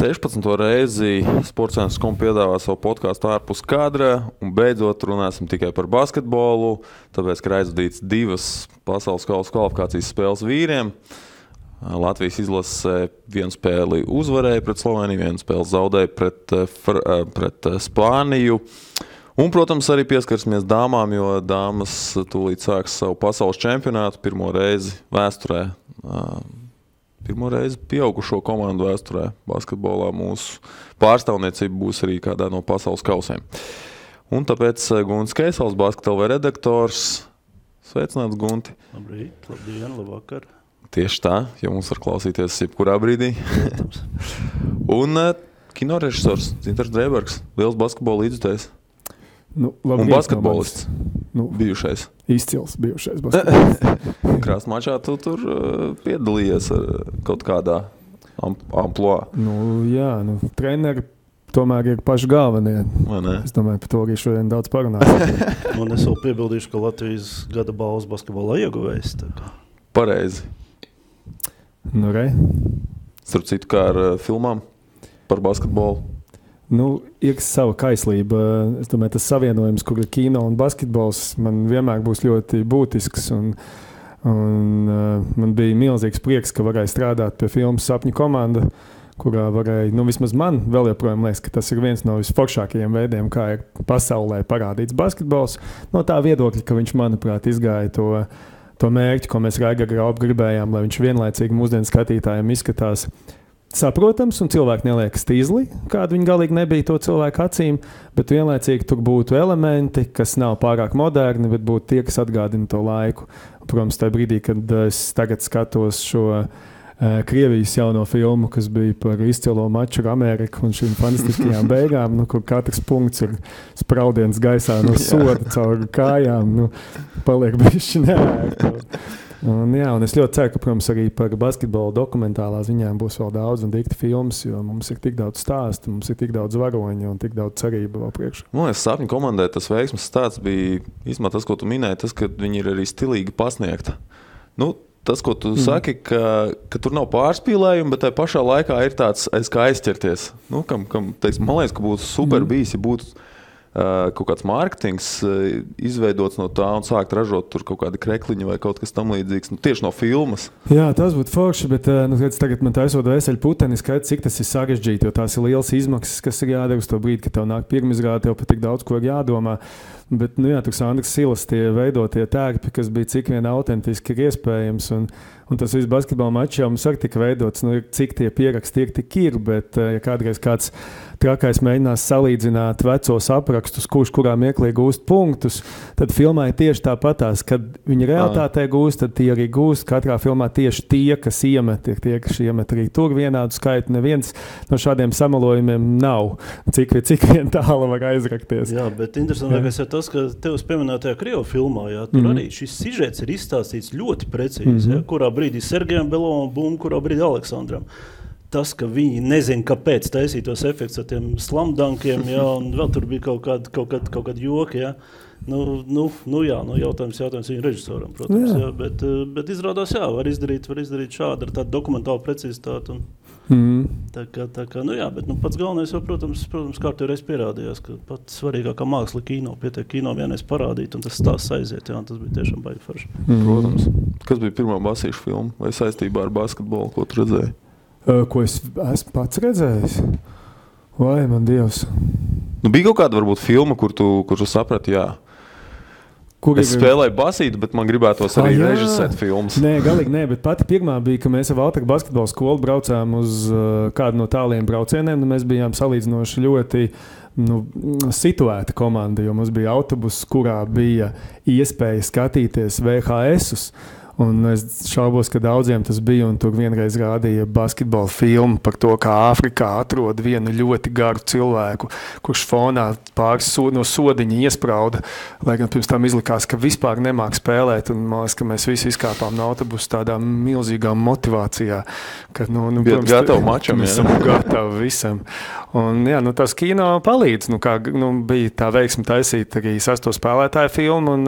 16. reizi Sportcentrs.com piedāvā savu podkāstu ārpus kadra, un beidzot runāsim tikai par basketbolu, tāpēc, ka ir aizvadīts 2 pasaules kausa kvalifikācijas spēles vīriem. Latvijas izlase 1 spēli uzvarēja pret Sloveniju, 1 spēli zaudēja pret Spāniju. Un, protams, arī pieskarsimies dāmām, jo dāmas tūlīt sāks savu pasaules čempionātu pirmo reizi vēsturē. Pirmo reizi pieaugušo komandu vēsturē basketbolā mūsu pārstāvniecība būs arī kādā no pasaules kausiem. Un tāpēc Guntis Keisels, Basket.lv redaktors. Sveicināts, Gunti! Labrīt, labdien, labvakar! Tieši tā, jo mums var klausīties jebkurā brīdī. Un kinorežisors Dzintars Drēbergs, liels basketbola līdzjutējs. Un basketbolists bijušais. Izcils bijušais basketbolists. Krāsmačā tu tur piedalījies kaut kādā amploā. Jā, treneri tomēr ir paši galvenie. Es domāju, par to arī šodien daudz parunāsim. Un es vēl piebildīšu, ka Latvijas gada balvas basketbolā ieguvējs. Pareizi. Starp citu, kā ar filmām par basketbolu. Ir sava kaislība. Es domāju, tas savienojums, kur ir kino un basketbols, man vienmēr būs ļoti būtisks. Man bija milzīgs prieks, ka varēja strādāt pie filmas Sapņu komanda, kurā varēja, vismaz man vēl joprojām liekas, ka tas ir viens no visforšākajiem veidiem, kā ir pasaulē parādīts basketbols. No tā viedokļa, ka viņš, manuprāt, izgāja to mērķi, ko mēs Raigar Graup gribējām, lai viņš vienlaicīgi mūsdienu skatītājiem izskatās saprotams, un cilvēki neliekas tīzli, kāda viņi galīgi nebija to cilvēku acīm, bet vienlaicīgi tur būtu elementi, kas nav pārāk moderni, bet būtu tie, kas atgādina to laiku. Protams, tajā brīdī, kad es tagad skatos šo Krievijas jauno filmu, kas bija par izcilo maču ar Ameriku un šīm fantastiskajām beigām, kur katrs punkts ir spraudiens gaisā no soda caur kājām, paliek bišķi neērti. Un es ļoti ceru, ka, protams, arī par basketbolu dokumentālā ziņām būs vēl daudz un dikti filmas, jo mums ir tik daudz stāstu, mums ir tik daudz varoņu un tik daudz cerību vēl priekšā. Sapņu komandai tas veiksmes stāsts bija, īstenībā tas, ko tu minēji, tas, ka viņi ir arī stilīgi pasniegta. Tas, ko tu saki, ka tur nav pārspīlējumi, bet tajā pašā laikā ir tāds kā aizķerties. Man liekas, ka būtu super bijis, ja būtu kaut kāds mārketings izveidots no tā un sākt ražot tur kaut kādi krekliņi vai kaut kas tam līdzīgs, tieši no filmas. Jā, tas būtu forši, bet tagad man taisot veseļu puteni skaidrs, cik tas ir sarežģīti, jo tās ir liels izmaksas, kas ir jādara uz to brīdi, kad tev nāk pirmizrāde, tev pat tik daudz, ko ir jādomā. Bet, tur Sandras Silas tie veidotie tērpi, kas bija cik vien autentiski ir iespējams, un tas viss basketbola mačā mums arī tika veidots, cik tie pieraksti tik ir, bet ja kādreiz kāds trakais mēģinās salīdzināt vecos aprakstus, kurā mieklī gūst punktus, tad filmā ir tieši tāpatās, kad viņi realitātē gūst, tad tie arī gūst. Katrā filmā tieši tie, kas iemet, ir tie, kas iemet arī tur vienādu skaitu. Neviens no šādiem samalojumiem nav. Cik vien tālu var aizrakties. Jā, bet interesantākais ir tas, ka tevs pieminētajā Krievu filmā, tur arī šis sižets ir izstāstīts ļoti precīzi, kurā brīdī Sergejam Belovam bum, kurā brīdī Aleksandram. Tas, ka viņi nezina, kāpēc taisīt tos efekts ar tiem slamdankiem, un vēl tur bija kaut kādi joki, jautājums viņu režisoram, protams, bet izrādās, var izdarīt šādi ar tādu dokumentālu precizitāti. Tā kā, bet pats galvenais jau, protams, kārtīgi reiz pierādījās, ka pats svarīgākā māksla kino, pietiek kino vienreiz parādīt, un tas stāsts aiziet, tas bija tiešām baigi forši. Protams. Kas bija pirmā basīša filma vai saistībā ar basketbolu, ko tu redzēji? Ko es esmu pats redzējis? Vai, man Dievs. Bija kaut kāda varbūt filma, kur tu saprati, es spēlēju basītu, bet man gribētos arī režisēt filmas. Nē, galīgi nē, bet pati pirmā bija, ka mēs ar Valtaku basketbola skolu braucām uz kādu no tāliem braucieniem, un mēs bijām salīdzinoši ļoti situēta komanda, jo mums bija autobus, kurā bija iespēja skatīties VHS-us. Un es šaubos, ka daudziem tas bija, un tur vienreiz rādīja basketbola filmu par to, kā Āfrikā atrod vienu ļoti garu cilvēku, kurš fonā pāris no sodiņa iesprauda, lai gan pirms tam izlikās, ka vispār nemāk spēlēt, un man liekas, ka mēs visi izkāpām no autobusu tādā milzīgā motivācijā, ka, protams, gatavi mačam, mēs esam gatavi visam. Un, tas kino palīdz, bija tā veiksme taisīt arī 6. spēlētāju filmu,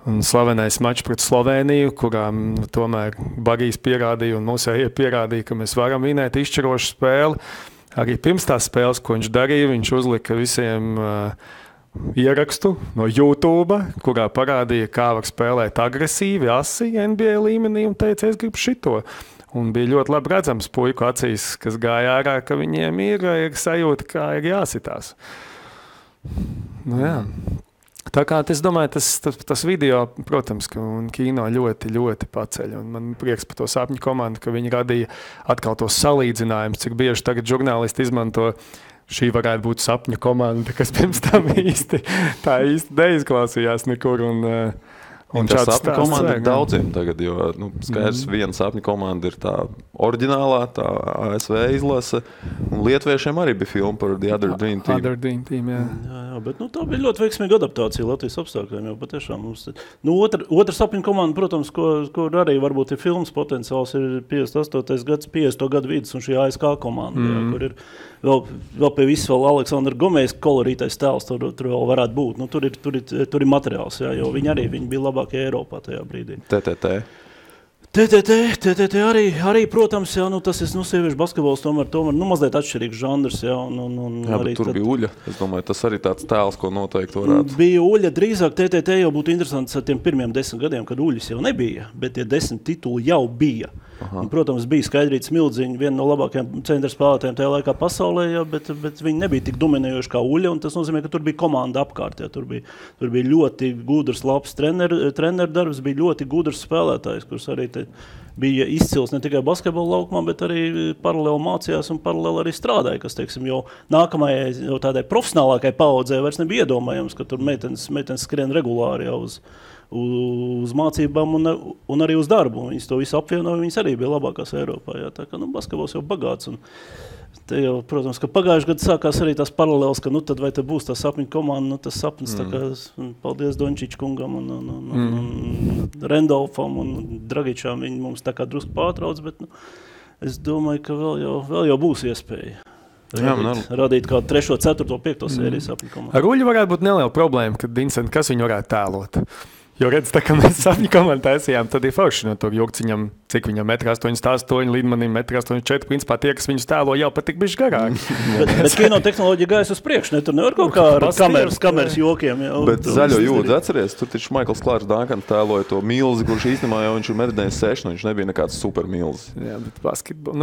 un slavenais mačs pret Sloveniju, kurām tomēr Bagijs pierādīja un Musēja pierādīja, ka mēs varam vinēt izšķirošu spēli. arī pirms tās spēles, ko viņš darīja, viņš uzlika visiem ierakstu no YouTube, kurā parādīja, kā var spēlēt agresīvi, asi NBA līmenī un teica, es gribu šito. Un bija ļoti labi redzams puiku acīs, kas gāja ārā, ka viņiem ir sajūta, kā ir jāsitās. Nu, jā. Tā kā es domāju, tas video, protams, un kino ļoti, ļoti paceļ. Un man prieks par to sapņu komandu, ka viņi radīja atkal tos salīdzinājumus, cik bieži tagad žurnālisti izmanto šī varētu būt sapņu komanda, kas pirms tam īsti neizklausījās nekur. Un tā sapņu komanda ir daudziem tagad, jo skaidrs, viena sapņu komanda ir tā oriģinālā, tā ASV izlase, un lietuviešiem arī bija filma par The Other Dream Team. Other Dream Team, jā. Jā, bet tā bija ļoti veiksmīga adaptācija Latvijas apstākļiem, jo patiešām mums... Otra sapņu komanda, protams, kur arī varbūt ir filmas potenciāls, ir 58. gads, 50. gadu vidus, un šī ASK komanda, jā, kur ir vēl pie visu vēl Aleksandra Gomējas kolorītais tēls, tur vēl varētu būt. Tur ir materiāls, jā, jo viņi bija labākie Eiropā tajā brīdī. TTT arī, protams, jā, tas ir sieviešu basketbols, tomēr mazliet atšķirīgs žanrs. Jā, jā, bet tur bija Uļa. Es domāju, tas arī tāds tēls, ko noteikti varētu. Bija Uļa, drīzāk TTT jau būtu interesants ar tiem pirmiem 10 gadiem, kad Uļas jau nebija, bet tie 10 tituli jau bija. Un, protams, bija Skaidrīta Smildziņa, viena no labākajiem centra spēlētājiem tajā laikā pasaulē, jā, bet viņi nebija tik dominējoši kā Uļa, un tas nozīmē, ka tur bija komanda apkārt. Jā, tur bija ļoti gudrs, labs treneru darbs, bija ļoti gudrs spēlētājs, kurš arī bija izcils ne tikai basketbola laukumā, bet arī paralēli mācījās un paralēli arī strādāja, kas, teiksim, jau nākamajai, jau tādai profesionālākai paudzē vairs nebija iedomājams, ka tur meitenes skrien regulāri jau uz mācībām un arī uz darbu. Viņas to visu apvienoja, viņas arī bija labākās Eiropā. Jā. Tā kā basketbols jau bagāts. Un te jau, protams, ka pagājuši gadu sākās arī tās paralēles, ka tad vai te būs tā sapņu komanda, tas sapnis, tā kā paldies Dončič kungam un Rendolfam un Dragičām, viņi mums tā kā drusku pārtrauc, bet es domāju, ka vēl jau būs iespēja. Radīt kādu 3., 4., 5. sēriju sapņu komandu. Ar Uļu varētu būt neliela problēma, kad Vincent, kas viņu varētu tēlot? Jo redz, tā kā mēs sapņu komandu taisījām, tad ir forši no tur Jurciņam, cik viņam 1,88 m, Lidmanim 1,84 m, principā tie, kas viņus tēlo, jau patik bišķi garāki. bet kino tehnoloģija gājas uz priekšu, ne? Tur nevar kaut kā ar kameras jokiem. Jā, bet zaļo jūdzi atceries, tur taču Maikls Klārs Dankans tēloja to milzi, kurš īstenībā jau viņš ir Meddeņas 6, viņš nebija nekāds super milzi. Jā, bet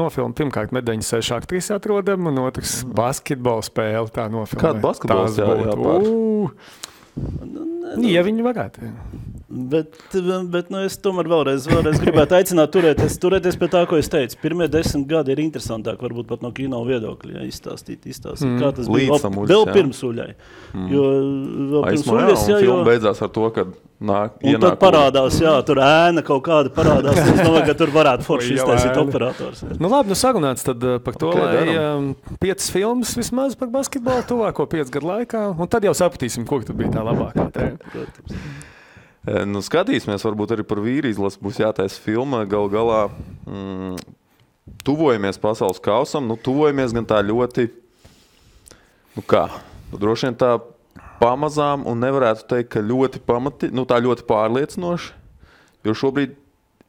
nofilma pirmkārt Meddeņas 6 aktris atrodam, un otrs basketbola spēle tā nofilmē. Kāda basketbols jāpār? Ja viņi varētu. Bet es tomēr vēlreiz gribētu aicināt turēties pie tā, ko es teicu. Pirmie 10 gadi ir interesantāk, varbūt pat no kino viedokļa, izstāstīt, kā tas bija vēl pirms Uļai. Jo vēl pirms Uļas, jā, un filma beidzās ar to, ka un tad parādās, jā, tur ēna kaut kāda parādās, es domāju, ka tur varētu forši iztaisīt operators. Jā. Nu labi, sarunāts tad par to, lai 5 filmas vismaz par basketbolu tuvāko 5 gadu laikā, un tad jau sapratīsim, kur tad bija tā labākā. Protams. Skatīsimies, varbūt arī par vīri izlasi būs jātaisa filma. Galu galā tuvojamies pasaules kausam, tuvojamies gan tā ļoti, droši vien tā pamazām un nevarētu teikt, ka ļoti tā ļoti pārliecinoši, jo šobrīd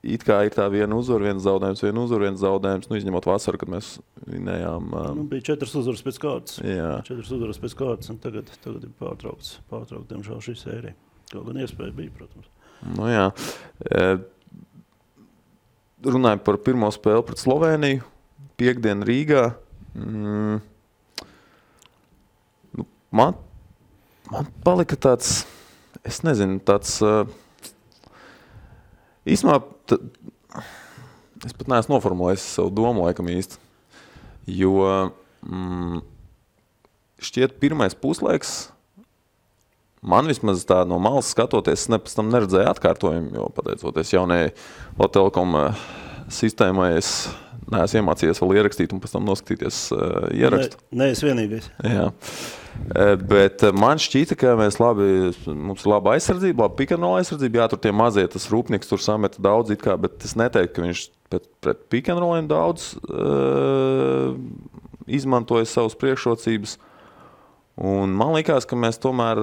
it kā ir tā viena uzvara, viens zaudējums, izņemot vasaru, kad mēs vinējām. Bija 4 uzvaras pēc kārtas. Jā. 4 uzvaras pēc kārtas, un tagad ir pārtraukts, diemžēl, šī sērija. Kaut gan iespēja bija, protams. Jā. Runājot par pirmo spēli pret Sloveniju, piektdien Rīgā. Man palika tāds, es nezinu, tāds... Īsmā, es pat neesmu noformulējis savu domu laikam īsti, jo šķiet pirmais puslaiks, man vismaz tā no malas skatoties, es pēc tam neredzēju atkārtojumu, jo pateicoties jaunajai Latvijas sistēmai, es neesmu iemācījies vēl ierakstīt un pēc tam noskatīties ierakstu. Ne, es vienīgais. Jā. Bet man šķita, ka mums ir laba aizsardzība, laba pick-and-roll aizsardzība, jā, tur tie mazie, tas rūpnieks tur sameta daudz it kā, bet es neteiktu, ka viņš pret pick-and-rolliem daudz izmantoja savas priekšrocības. Un man likās, ka mēs tomēr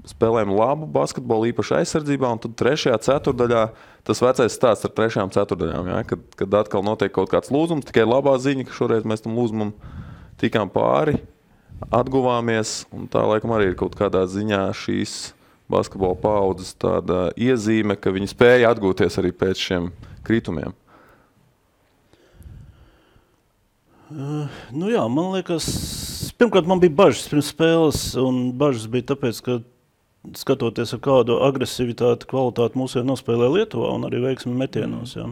spēlējam labu basketbolu, īpaši aizsardzībā, un tad 3. ceturdaļā, tas vecais stāsts ar 3. ceturdaļām, ja, kad atkal notiek kaut kāds lūzums, tikai labā ziņa, ka šoreiz mēs tam lūzumam tikām pāri, atguvāmies, un tā laikam arī ir kaut kādā ziņā šīs basketbola paudzes tāda iezīme, ka viņi spēja atgūties arī pēc šiem kritumiem. Nu jā, man liekas, pirmkārt man bija bažas pirms spēles, un bažas bija tāpēc, ka skatoties ar kādu agresivitāti, kvalitāti mūsu nospēlē Lietuvā un arī veiksmi metienos. Jā.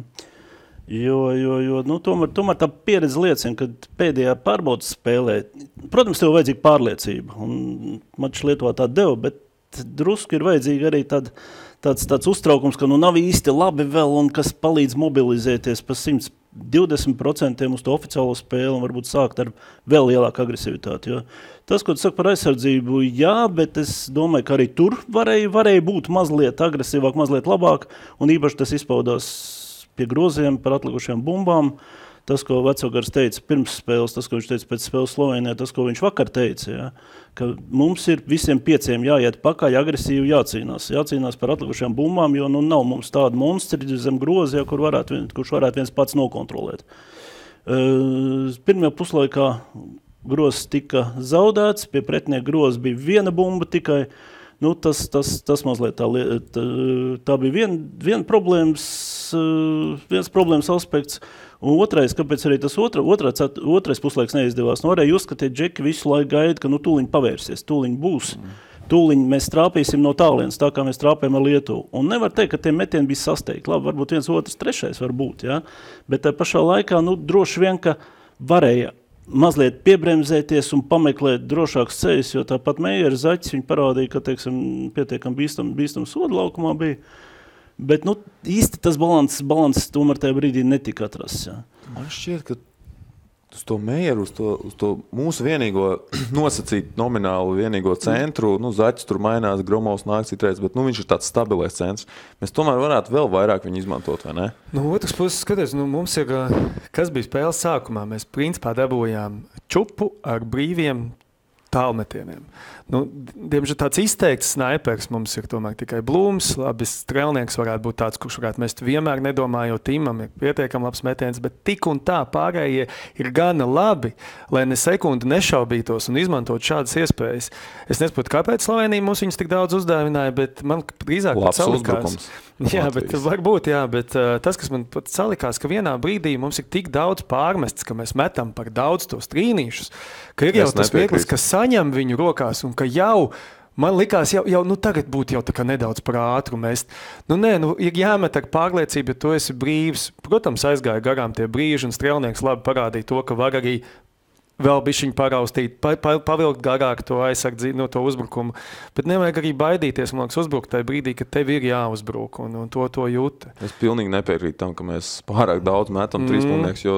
Jo nu, tomēr tā pieredze liecina, ka pēdējā pārbaudas spēlē, protams, tev vajadzīga pārliecība, un mačs Lietuvā tā deva, bet drusku ir vajadzīga arī tāds uztraukums, ka nu nav īsti labi vēl un kas palīdz mobilizēties pa 120% uz to oficiālo spēli un varbūt sākt ar vēl lielāku agresivitāti. Jo tas, ko tu saki par aizsardzību, jā, bet es domāju, ka arī tur varēja būt mazliet agresīvāk, mazliet labāk, un īpaši tas izpaudās pie groziem par atlikušajām bumbām. Tas, ko Vecogars teica pirms spēles, tas, ko viņš teica pēc spēles Slovenijā, tas, ko viņš vakar teica, ja, ka mums ir visiem 5 jāiet pakaļ, agresīvi jācīnās par atlikušajām bumbām, jo nu nav mums tāda monstri zem grozia, kurš varētu viens pats nokontrolēt. Pirmajā puslaikā grozs tika zaudēts, pie pretinieka grozs bija viena bumba tikai. Nu, tas mazliet tā bija viens problēmas aspekts. Un otrais, kāpēc arī tas otrais puslaiks neizdevās, nu varēja uzskatīt, Džeki visu laiku gaida, ka nu tūliņ pavērsies, tūliņ būs, tūliņ mēs trāpīsim no tālienes, tā kā mēs trāpējam ar Lietuvu. Un nevar teikt, ka tie metieni bija sasteigti. Labi, varbūt 1, 2, 3 var būt, ja? Bet tā pašā laikā, nu droši vien, ka varēja mazliet piebremzēties un pameklēt drošāks ceļus, jo tāpat Meijera Zaķis viņi parādīja, ka, teiksim, pietiekam bīstam sodu laukumā bija. Bet, nu, īsti tas balans tomēr tajā brīdī netika atrasts, jā. Man šķiet, ka uz to Meijeru, uz to mūsu vienīgo nosacīt nominālu vienīgo centru, nu, Zaķis tur mainās, Gromovs nāk citreiz, bet, nu, viņš ir tāds stabilais centrs. Mēs tomēr varētu vēl vairāk viņu izmantot, vai ne? Nu, otrs puses, skaties, nu, mums ir, kas bija spēles sākumā, mēs principā dabūjām čupu ar brīviem tālmetieniem. Nu, diemžēl tāds izteikts snaipers mums ir tomēr tikai Blūms, labi, strēlnieks varētu būt tāds, kurš varētu mest vienmēr nedomājot, Timam ir pietiekami labs metiens, bet tik un tā pārējie ir gana labi, lai ne sekundi nešaubītos un izmantot šādas iespējas. Es nesaprotu, kāpēc Slovenija mums viņus tik daudz uzdāvināja, bet man drīzāk labs uzbrukums. Jā, bet varbūt, jā, bet tas, kas man pat salikās, ka vienā brīdī mums ir tik daudz pārmests, ka mēs metam par daudz tos trīnīšus, ka ir jau tas vieglis, ka saņem viņu rokās un ka jau, man likās, jau nu tagad būtu jau tā kā nedaudz par ātru mest. Nu nē, nu ir jāmet ar pārliecību, ja tu esi brīvs. Protams, aizgāja garām tie brīži un strēlnieks labi parādīja to, ka var arī vēl bišķiņu paraustīt, pavilkt garāk to aizsardzību, no to uzbrukumu. Bet nevajag arī baidīties, man liekas, uzbrukt tajā brīdī, ka tev ir jāuzbruk un to jūt. Es pilnīgi nepiekrītu tam, ka mēs pārāk daudz metam trīspunktiniekus, jo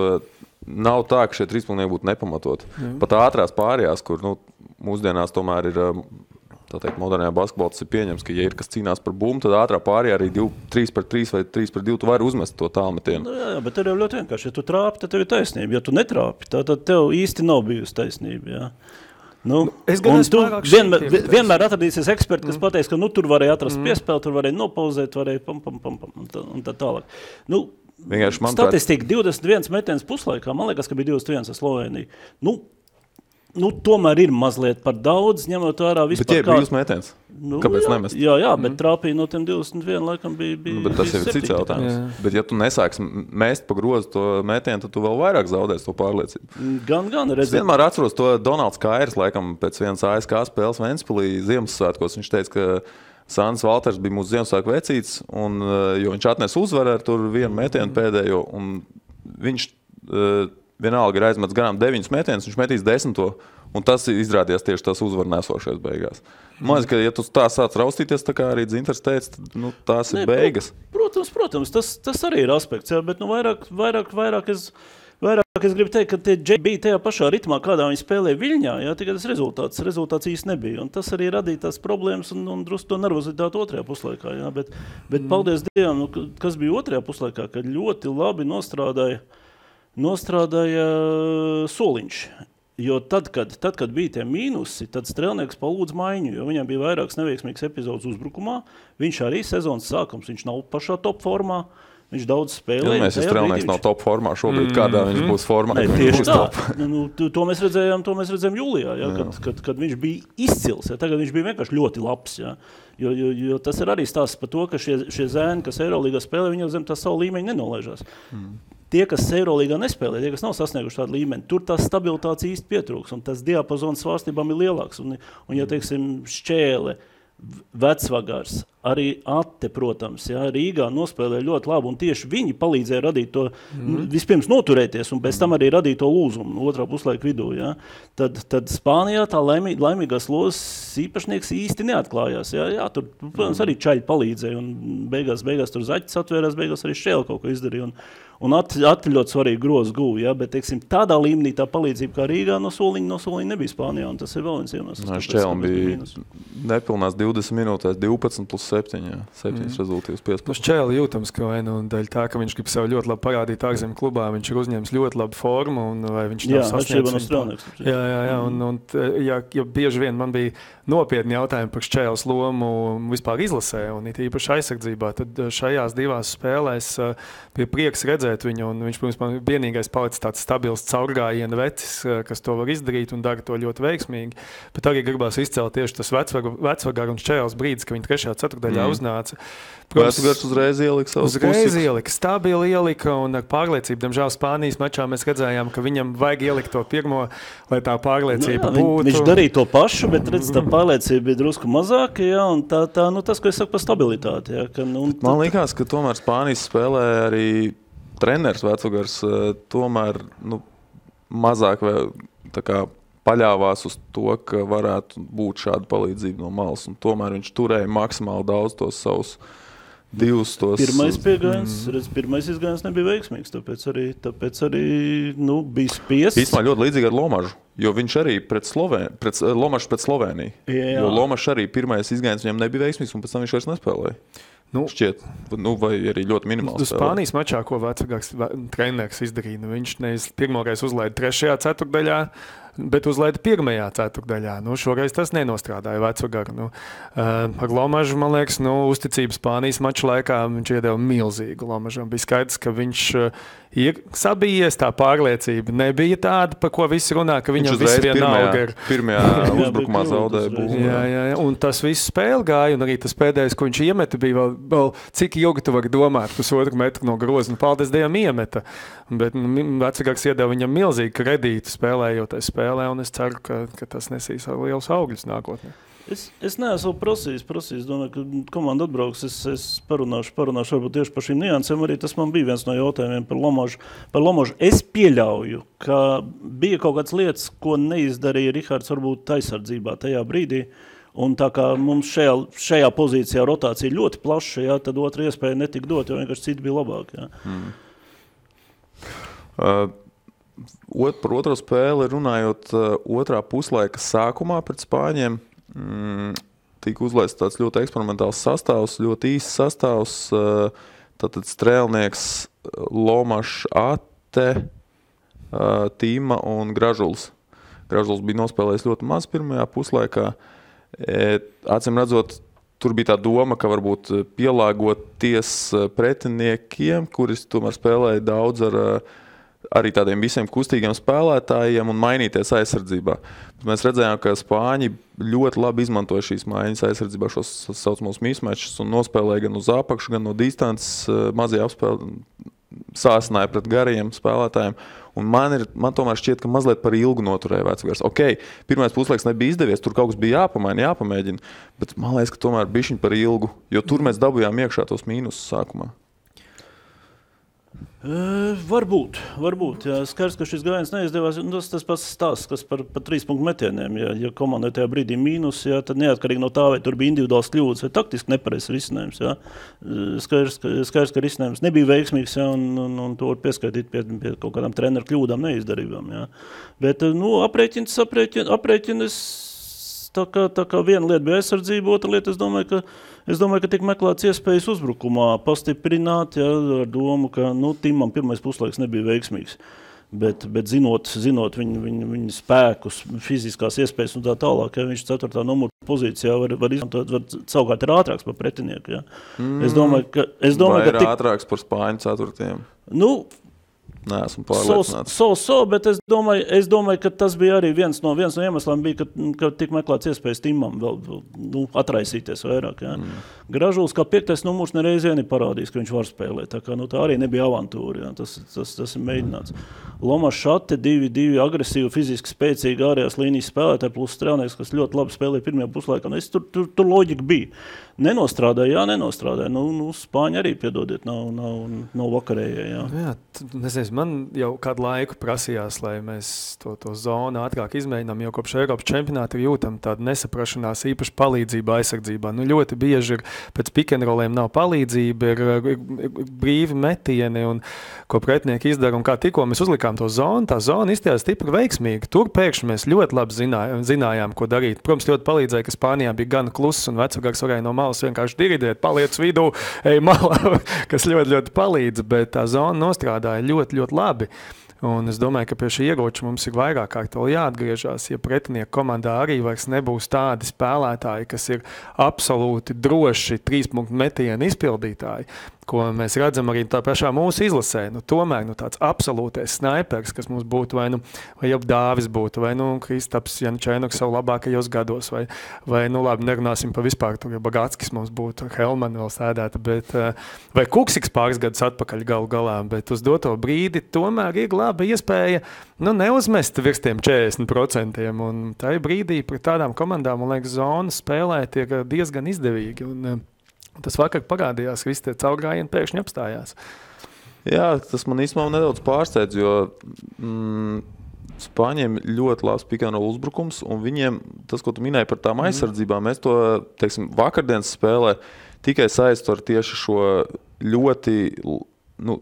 nav tā, ka šie trīspunktieki būtu nepamatot. Pat ātrās pārējās, kur nu, mūsdienās tomēr ir, tā teikt, modernajā basketbolā tas ir pieņems, ka ja ir kas cīnās par bumbu, tad ātrā pārējā arī 3-3 vai 3-2 tu vari uzmest to tālmetienu. Nu, jā, bet tev jau ļoti vienkārši. Ja tu trāpi, tad tev ir taisnība. Ja tu netrāpi, tad tev īsti nav bijusi taisnība. Jā. Nu, es vienmēr atradīsies eksperti, kas pateiks, ka nu, tur varēja atrast piespēli, tur varēja nopauzēt, varēja un tā tālāk. Nu, statistika 21 metiens puslaikā, man liekas, ka bija 21 ar Sloveniju. Nu, tomēr ir mazliet par daudz, ņemot vērā vispār. Bet ja ir brīvs metiens, kāpēc nemest? Jā, bet trāpīja no tiem 21 laikam bija bet tas jau ir cits jautājums. Bet ja tu nesāks mest pa grozu to metienu, tad tu vēl vairāk zaudēsi to pārliecību. Gan. Es vienmēr atceros to Donalds Kairs, laikam pēc vienas ASK spēles Ventspilī Ziemassvētkos. Viņš teica, ka Sandis Valters bija mūsu Ziemassvētku vecīts, un, jo viņš atnesa uzvaru ar tur vienu metienu pēdējo, un viņš vienalga ir aizmets garām 9 metienus, viņš metīs 10, un tas izrādījās tieši tas uzvaru nesošais beigās. Man liekas, ka ja tu tā sāc raustīties, tā kā arī Dzintars teica, tad nu, tās ir beigas. Protams, tas arī ir aspekts, jā, bet nu, vairāk es gribu teikt, ka tie džeki bija tajā pašā ritmā, kādā viņi spēlēja Viļņā, jā, tikai tas rezultāts īsti nebija, un tas arī radīja tās problēmas un drusku to nervozitāti otrajā puslaikā, jā, bet paldies Dievam, nu, kas bija otrajā puslaikā, kad ļoti labi nostrādāja Soliņš. Jo tad, kad bija tie mīnusi, tad strēlnieks palūdz maiņu, jo viņam bija vairākas neveiksmīgas epizodes uzbrukumā. Viņš arī sezonas sākums, viņš nav pašā top formā. viņš daudz spēlē. Ja mēs strēlnieks nav top formā šobrīd, kādā viņš būs formā. Nē, tieši tā. To mēs redzējām jūlijā, ja, kad viņš bija izcils. Ja, tagad viņš bija vienkārši ļoti labs. Ja. Jo tas ir arī stāsts par to, ka šie zēni, kas Eirolīgā spēlē, viņi jau zem tā savu līmeņu nenolaižās. Tie, kas Eirolīgā nespēlē, tie, kas nav sasnieguši tādu līmeni, tur tās stabilitātes īsti pietrūks, un tas diapazons svārstībām ir lielāks. Un ja, teiksim, Šķēle, Vecvagars, arī Atte, protams, ja, Rīgā nospēlēja ļoti labi, un tieši viņi palīdzēja radīt to, vispirms noturēties, un pēc tam arī radīt to lūzumu otrā puslaika vidū. Ja. Tad Spānijā tā laimīgās lozes īpašnieks īsti neatklājās. Ja. Tur, protams, arī čaļi palīdzēja, un beigās tur Zaķis atvērās, beigās arī Šķēle kaut ko izdarīja. Un Atte ļoti svarīgi grozu guva, ja, bet, teiksim, tādā līmenī tā palīdzība kā Rīgā no soliņa nebija Spānijā, un tas ir vēl viens iemesls. Šķēlim bija nepilnās 20 minūtēs 12 plus 7, jā, 7 rezultīvas 15. Šķēli jūtams, ka vai nu daļa tā, ka viņš grib sev ļoti labi parādīt ārzemju klubā, viņš ir uzņēmis ļoti labu formu, un vai viņš nav sasniedzis. Jā, un bieži vien man bija nopietni jautājumi par Šķēles lomu vispār izlasē, un it īpaši aizsardzībā, tad šajās divās spēlēs bija prieks redzēt viņu, un viņš, protams, vienīgais palicis tāds stabils caurgājiena vecis, kas to var izdarīt un dara to ļoti veiksmīgi, bet arī gribās izcelt tieši tas Vecvagara un Šķēles brīdis, ka viņi 3. ceturtdaļā uznāca. Vecvagars uzreiz ielika savus stabili ielika, un ar pārliecību, diemžēl Spānijas mačā mēs redzējām, ka viņam vajag ielikt to pirmo, lai tā pārliecība būtu. Viņš darīja to pašu, bet redz, tā pārliecība bija drusku mazāka, ja, un tas, ko es saku par stabilitāti. Ja, man liekas, ka tomēr Spānijas spēlē arī treneris Vecvagars tomēr mazāk tā kā paļāvās uz to, ka varētu būt šāda palīdzība no malas, un tomēr viņš turēja maksimāli daudz tos savus divus tos... Pirmais izgājiens nebija veiksmīgs, tāpēc arī bija spiests. Īstumā ļoti līdzīgi ar Lomažu, jo viņš arī Lomažs pret Sloveniju. Jā. Jo Lomažs arī pirmais izgājiens viņam nebija veiksmīgs, un pēc tam viņš vairs nespēlēja. Šķiet, vai arī ļoti minimāli spēlē. Spānijas mačā, ko Vecvagars treneris izdarīja, viņš nevis pirmoreiz uzlaida 3. ceturtdaļā, bet uzlaida 1. ceturtdaļā. Šoreiz tas nenostrādāja Vecvagaru. Ar Lomažu, man liekas, uzticību Spānijas mača laikā viņš iedeva milzīgu Lomažam. Bija skaidrs, ka viņš ir sabijies, tā pārliecība nebija tāda, par ko visi runā, ka viņam viss vienalga ir. Pirmajā uzbrukumā zaudēja būvu. Jā, un tas viss spēle gāja, un arī tas pēdējais, ko viņš iemeta, bija vēl cik ilgi tu vari domāt, 1,5 metru no groza, paldies Dievam iemeta. Bet Vecvagars iedeva viņam milzīgu kredītu spēlējoties spēlē, un es ceru, ka tas nesīs liels augļus nākotnē. Es neesmu prasījis, domāju, ka komanda atbrauks, es parunāšu varbūt tieši par šīm niansēm, arī tas man bija viens no jautājumiem par Lomažu. Es pieļauju, ka bija kaut kādas lietas, ko neizdarīja Rihards varbūt aizsardzībā tajā brīdī, un tā kā mums šajā pozīcijā rotācija ļoti plaša, jā, tad otra iespēja netika dot, jo vienkārši citi bija labāk. Jā. Par otro spēli runājot, otrā puslaika sākumā pret Spāņiem tika uzlaists tāds ļoti eksperimentāls sastāvs, ļoti īsts sastāvs, tātad strēlnieks Lomašs, Atte, Tīma un Gražuls. Gražuls bija nospēlējis ļoti maz pirmajā puslaikā. Acīm redzot, tur bija tā doma, ka varbūt pielāgoties pretiniekiem, kuris tomēr spēlēja daudz ar arī tādiem visiem kustīgiem spēlētājiem un mainīties aizsardzībā. Mēs redzējām, ka Spāņi ļoti labi izmantoja šīs maiņas aizsardzībā, šos saucamos mismatches, un nospēlēja gan uz apakšu, gan no distances, mazie apspēli sāsināja pret garajiem spēlētājiem. Un man tomēr šķiet, ka mazliet par ilgu noturēja Vecvagars. Pirmais puslaiks nebija izdevies, tur kaut kas bija jāpamēģina, bet man liekas, ka tomēr bišķiņ par ilgu, jo tur mēs dabujām iekšā tos mīnusus sākumā. Varbūt. Jā. Skaidrs, ka šis gājiens neizdevās. Tas pats stāsts, kas par 3 punktu metieniem. Ja komandai tajā brīdī mīnus, jā, tad neatkarīgi no tā, vai tur bija individuāls kļūdas vai taktiski nepareizs risinājums. Jā. Skaidrs, ka risinājums nebija veiksmīgs, jā, un to var pieskaitīt pie kaut kādām treneru kļūdām, neizdarībām. Jā. Bet aprēķinas tā kā viena lieta bija aizsardzība, otra lieta, es domāju, ka tiek meklēts iespējas uzbrukumā pastiprināt, ja, ar domu, ka Timam pirmais puslaiks nebija veiksmīgs. Bet zinot viņa spēkus, fiziskās iespējas un tā tālāk, ja viņš 4. numura pozīcijā var izmantot, var savukārt ir ātrāks par pretinieku. Ja. Es domāju, ka ir ātrāks par Spāņu 4. Neesmu pārliecināts. Bet es domāju, ka tas bija arī viens no iemesliem, ka tik meklēts iespējas Timam vēl atraisīties vairāk. Ja. Gražulis kā 5. numurs nereiz vien ir parādījis, ka viņš var spēlēt. Tā kā tā arī nebija avantūra. Ja. Tas ir mēģināts. Loma Šate, 2 agresīvi, fiziski spēcīgi ārējās līnijas spēlētāji, plus strēlnieks, kas ļoti labi spēlēja pirmajā puslaikā. Tur loģika bija. Nenostrādāja. Spāņi arī, piedodiet, nav vakarējie. Jā, nezinu, man jau kādu laiku prasījās, lai mēs to zonu ātrāk izmēģinām, jo kopš Eiropas čempionāta jūtam tādu nesaprašanās, īpaši palīdzību aizsardzībā. Ļoti bieži pēc pick-and-rolliem nav palīdzība, ir brīvi metieni, un ko pretinieki izdara, un kā tikko mēs uzlikām to zonu, tā zona izstājās stipri veiksmīgi. Tur pēkšņi mēs ļoti labi zinājām, ko darīt. Protams, ļoti palīdzēja, ka Spānijā bija gan kluss, un vecāks varēja no malas vienkārši dirigēt, paliec vidū, ej malā, kas ļoti, ļoti palīdz, bet tā zona nostrādāja ļoti, ļoti labi. Un es domāju, ka pie šī ieroča mums ir vairāk kārt vēl jāatgriežās, ja pretinieku komandā arī vairs nebūs tādi spēlētāji, kas ir absolūti droši 3-punktu metienu izpildītāji, ko mēs redzam arī tā pašā mūsu izlasē. Tomēr tāds absolūtais snaipers, kas mums būtu, vai jau Dāvis būtu, vai Kristaps Jančēnoks savu labākajos gados, vai labi, nerunāsim pa vispār, tur jau Bagatskis mums būtu, Helman vēl sēdēta, bet, vai Kuksiks pāris gadus atpakaļ galā, bet uz doto brīdi tomēr ir laba iespēja neuzmest virs tiem 40%, un tajā brīdī pret tādām komandām, man liekas, zonas spēlēt ir diezgan izdevīgi, un tas vakar parādījās, ka visi tie caurgājieni pēkšņi apstājās. Jā, tas man īstenībā nedaudz pārsteidz, jo Spāņiem ļoti labs pick-and-roll uzbrukums, un viņiem, tas, ko tu minēji par tām aizsardzībām, mēs to, vakardienas spēlē tikai saistu ar tieši šo ļoti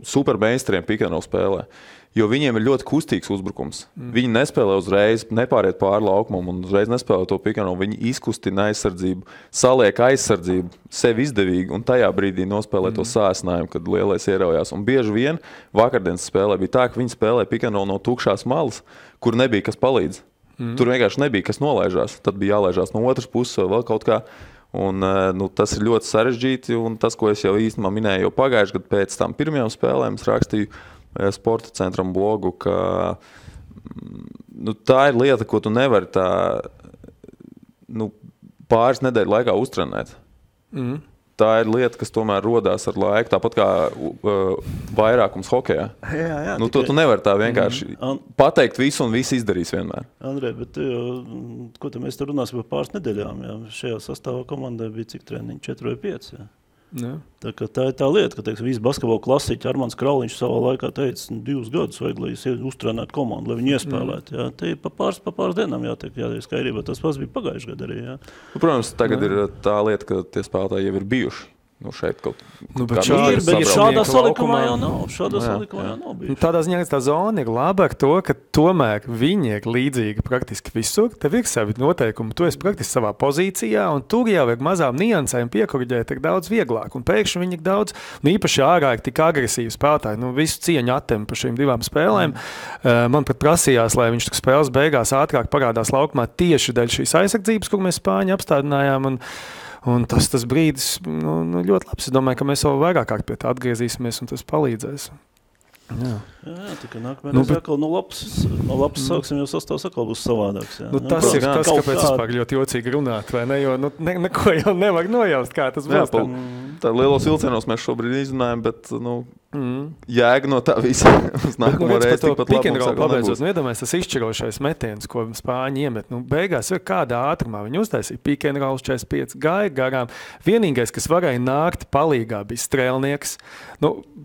super mainstream pick-and-roll spēlē. Jo viņiem ir ļoti kustīgs uzbrukums. Viņi nespēlē uzreiz, nepāriet pāri laukumam un uzreiz nespēlē to pick-and-roll. Viņi izkustina aizsardzību, saliek aizsardzību sev izdevīgi un tajā brīdī nospēlē to sāsinājumu, kad lielais ieraujās. Un bieži vien vakardienas spēlē bija tā, ka viņi spēlē pick-and-roll no tukšās malas, kur nebija kas palīdz. Tur vienkārši nebija kas nolaižās. Tad bija jālaižās no otras puses vai vēl kaut kā. Un, tas ir ļoti sarežģīti, un tas, ko es jau īstenībā minēju jau pagājuši, kad pēc tam pirmajām spēlēm es rakstīju Sporta centram blogu, ka tā ir lieta, ko tu nevari pāris nedēļu laikā uztrenēt. Tā ir lieta, kas tomēr rodās ar laiku, tāpat kā vairākums hokejā. Jā, to tu nevari tā vienkārši pateikt visu un visu izdarīs vienmēr. Andrej, bet ko te mēs te runāsim par pāris nedēļām? Jā? Šajā sastāvā komandai bija cik treniņi? 4 vai 5? Jā? Tā ir tā lieta, ka visi basketbola klasiķi Armands Krauliņš savā laikā teica 2 gadus vajag, lai uztrenētu komandu, lai viņi iespēlētu. Jā. Te pa pāris dienām jātiek skaidrībā. Tas pats bija pagājuši gadu arī. Jā. Protams, tagad ir tā lieta, ka tie spēlētāji jau ir bijuši. Šeit kaut bet šādā salikumā jau nav bijuši. Tādā ziņā tā zona ir laba ar to, ka tomēr viņi ir līdzīgi praktiski visur. Tev ir savi noteikumi, tu esi praktiski savā pozīcijā, un tur jau ir mazām niansēm piekoriģēt ir daudz vieglāk. Un pēkšņi viņi ir daudz, un īpaši ārā ir tik agresīvi spēlētāji. Visu cieņu attem par šīm 2 spēlēm. Man pat prasījās, lai viņš spēles beigās ātrāk parādās laukumā tieši dēļ šīs aizsardzības, kur mēs Spāņi apstādinājām. Un tas brīdis ļoti labs. Es domāju, ka mēs vēl vairāk kārt pie tā atgriezīsimies, un tas palīdzēs. Jā, tikai nākamais atkal no labs sāksim, jo sastāvs atkal būs savādāks. Jā. Tas ir tas, kāpēc vispār ļoti jocīgi runāt, vai ne? Jo neko jau nevar nojaust, kā tas būs. Tā lielos vilcienos mēs šobrīd izrunājam, bet jēga no tā visa uz nākamo reizi tikpat labi mums atkal nebūs. Iedomājies, tas izšķirošais metiens, ko Spāņi iemet. Beigās ir kādā ātrumā. Viņi uztaisīja pick-and-roll 45, gāja garām. Vienīgais, kas varēja nākt palīgā, bija strēlnieks.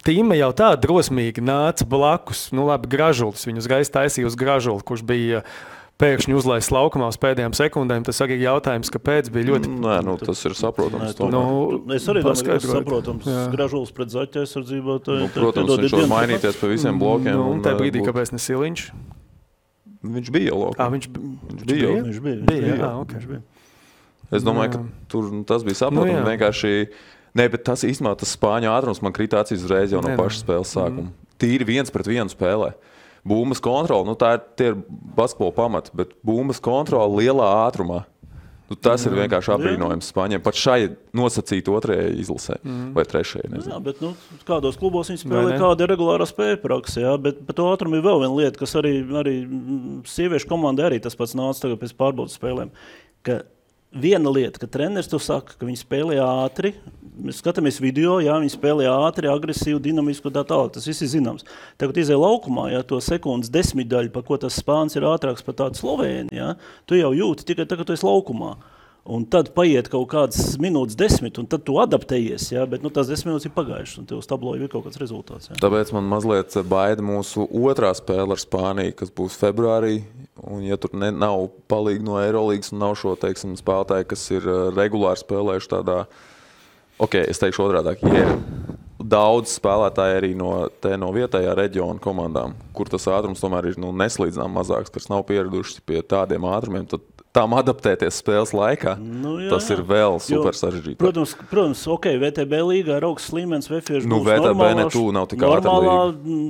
Tīma jau tā drosmīgi nāca blakus. Labi, Gražulis. Viņu uzreiz taisīja uz Gražuli, kurš bija pēkšņi uzlaists laukumā uz pēdējām sekundēm. Tas arī jautājums, kāpēc bija ļoti... tas ir saprotams. Es arī domāju, ka tas saprotams. Gražulis pret Zaķa aizsardzībā. Protams, viņš var mainīties pa visiem blokiem. Un tajā brīdī, kāpēc ne Siliņš? Viņš bija jau laukā. Viņš bija. Es domāju, ka tur tas bija saprotams. Vienkārši... bet tas īstenībā tas Spāņu ātrums man krīt acīs uzreiz jau no pašas spēles sākuma. Tīri 1-pret-1 spēlē. Bumbas kontrole, tie ir basketbola pamati, bet bumbas kontrole lielā ātrumā. Tas ir vienkārši apbrīnojams Spāņiem. Pat šai nosacīt otrajai izlasē vai trešajai. Nezinu. Jā, bet kādos klubos viņi spēlē, kāda ir regulārā spēja praksa, jā, bet par to ātrumu ir vēl viena lieta, kas arī sieviešu komandai arī tas pats nāca tagad pēc pārbaudas spēlēm, ka viena lieta, ka treneris to saka, ka viņi spēlē ātri, mēs skatāmies video, jā, viņi spēlē ātri, agresīvi, dinamisku, tā tālāk, tas viss ir zināms. Tagad izēja laukumā, jā, to sekundes desmitdaļu, par ko tas Spāns ir ātrāks par tādu Slovēni, jā, tu jau jūti tikai tagad tu esi laukumā. Un tad paiet kaut kādas minūtes 10, un tad tu adaptējies, jā, bet tās 10 minūtes ir pagājušas, un tev uz tablo ir kaut kāds rezultāts. Jā. Tāpēc man mazliet baida mūsu otrā spēle ar Spāniju, kas būs februārī, un ja tur nav palīgi no Eirolīgas un nav šo, teiksim, spēlētāji, kas ir regulāri spēlējuši tādā, es teikšu otrādāk, ja ir daudz spēlētāji arī no vietējā reģiona komandām, kur tas ātrums tomēr ir neslīdzinām mazāks, kas nav pieraduši pie tādiem ātrumiem, tad tām adaptēties spēles laikā, tas ir vēl super sarežģīti. Protams, VTB līgā ir augsts līmenis, VFiešu būs VTB nav tik ātra līga.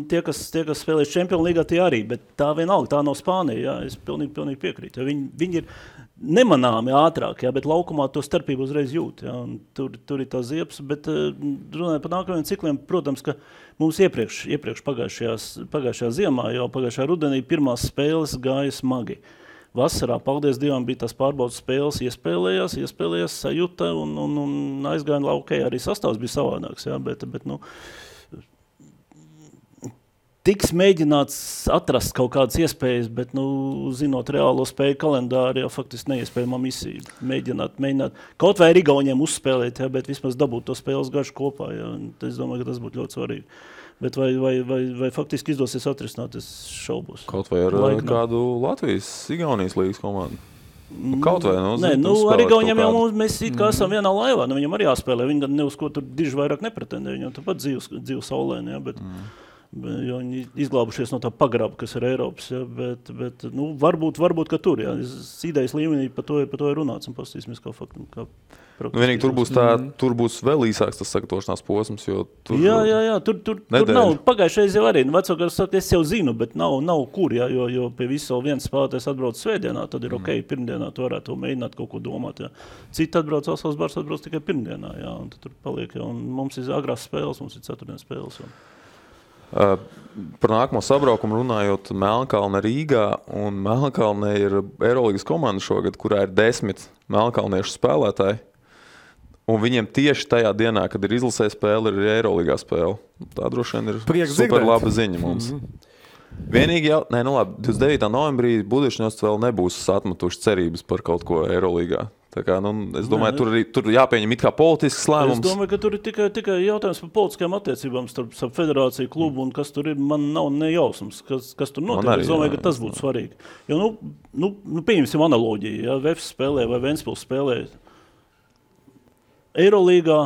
Tie, kas spēlēs Čempionu līgā, tie arī, bet tā vienalga, tā nav Spānija, jā, es pilnīgi piekrītu. Viņi ir nemanāmi ātrāk, jā, bet laukumā to starpību uzreiz jūt, jā, un tur ir tā ziepas, bet runājot par nākamajiem cikliem, protams, ka mums iepriekš pagājušajā ziemā, jau pagājušajā rudenī pirmās spēles gāja smagi. Vasarā, paldies Dievam, bija tās pārbaudas spēles, iespēlējās sajūta un aizgāja laukē, arī sastāvs bija savādāks, jā, bet tiks mēģināts atrast kaut kādas iespējas, bet, zinot reālo spēju kalendāru, jau faktiski neiespējamā misija. Mēģināt kaut vai ar Igauniem uzspēlēt, jā, bet vismaz dabūt to spēles garšu kopā, jā, es domāju, ka tas būtu ļoti svarīgi. Bet vai faktiski izdosies atrisināt, es šaubos. Kaut vai ar kādu Latvijas-Igaunijas līgas komandu? Kaut vai, ar Igauniem jau mēs it kā esam vienā laivā, viņam arī jāspēlē, viņi gan ne uz ko tur diži vairāk nepretendē, viņam tāpat dzīvu saulēni, jā, bet jo viņi izglābušies no tā pagraba, kas ir Eiropas, jā, bet varbūt, ka tur, jā, idejas līmenī par to ir runāts un pastīsimies kā faktu. Vienīgi tur būs vēl īsāks tas sagatavošanās posms, jo tur... Jā, tur nav, pagājušais jau arī, vecākās saka, es jau zinu, bet nav kur, jā, jo pie visu viens spēlētājs atbrauc svētdienā, tad ir pirmdienā tu varētu mēģināt kaut ko domāt, jā. Citi atbrauc, Alsavas bars atbrauc tikai pirmdienā, jā, un tur paliek, jā, un mums ir agrās spēles, mums ir ceturtdienas spēles, jā. Par nākamo sabraukumu runājot, Melnkalne Rīgā, un Melnkalne ir Eirolīgas komanda šogad, kurā ir 10 melnkalniešu spēlētāji, un viņiem tieši tajā dienā, kad ir izlasē spēle, ir Eirolīgā spēle. Tā droši vien ir super laba ziņa mums. Vienīgi 29. novembrī Budišņos vēl nebūs atmetuši cerības par kaut ko Eirolīgā. Tā kā, es domāju, tur jāpieņem it kā politisks lēmums. Es domāju, ka tur ir tikai jautājums par politiskajām attiecībām starp federāciju, klubu un kas tur ir, man nav nejausmas, kas tur notiek. Es domāju, ka tas būtu svarīgi. Jo, pieņemsim analoģiju, ja Vefs spēlē vai Ventspils spēlē Eirolīgā,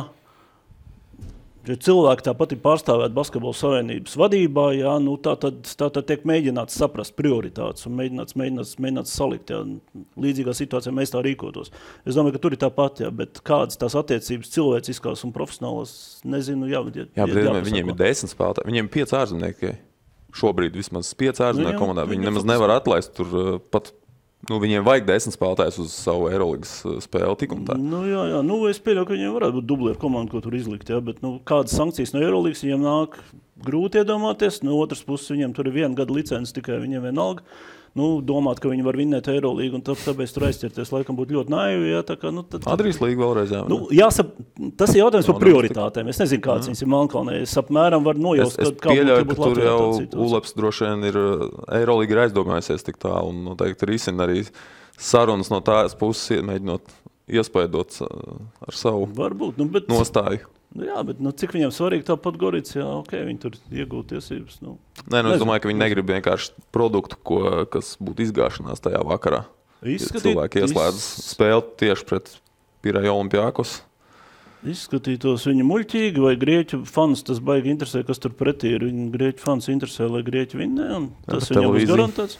ja cilvēki tāpat ir pārstāvēti Basketbola savienības vadībā, jā, tā tiek mēģināts saprast prioritātes un mēģināts salikt, jā, līdzīgā situācijā mēs tā rīkotos. Es domāju, ka tur ir tāpat, jā, bet kādas tās attiecības cilvēciskās un profesionālās, nezinu, bet viņiem ir 10 spēlētāji, viņiem ir 5 ārzemnieki, šobrīd vismaz 5 ārzemnieku komandā, viņi nemaz nevar atlaist tur pat. Viņiem vajag 10 spēlētājus uz savu Eirolīgas spēli tik un tā. Jā, es pieļauju, ka viņiem varētu būt dublieru komanda, ko tur izlikt, jā, bet kādas sankcijas no Eirolīgas viņiem nāk grūti iedomāties, no otras puses viņiem tur ir 1 gada licences tikai, viņiem vienalga. Domāt, ka viņi var vinnēt Eirolīgu, un tāpēc tur aizķerties, laikam būtu ļoti naivi, jā, tā kā, Adrijas līga vēlreiz, jā. Tas ir jautājums par prioritātēm, es nezinu, kāds viņas ir Melnkalnē, es apmēram varu nojaust, es pieļauju, ka tur jau Uleps droši vien ir, Eirolīga ir aizdomājusies tik tā, un noteikti risina arī sarunas no tās puses, mēģinot iespaidot ar savu nostāju. Jā, bet cik viņam svarīgi tāpat Gorica, jā, viņi tur iegūt tiesības. Es domāju, ka viņi negrib vienkārši produktu, kas būtu izgāšanās tajā vakarā. Cilvēki ieslēdz spēli tieši pret Pirēju Olimpiakos. Izskatītos viņa muļķīgi, vai grieķu fans tas baigi interesē, kas tur pretī ir. Viņa grieķu fans interesē, lai grieķi vinnē, un tas viņam būs garantēts.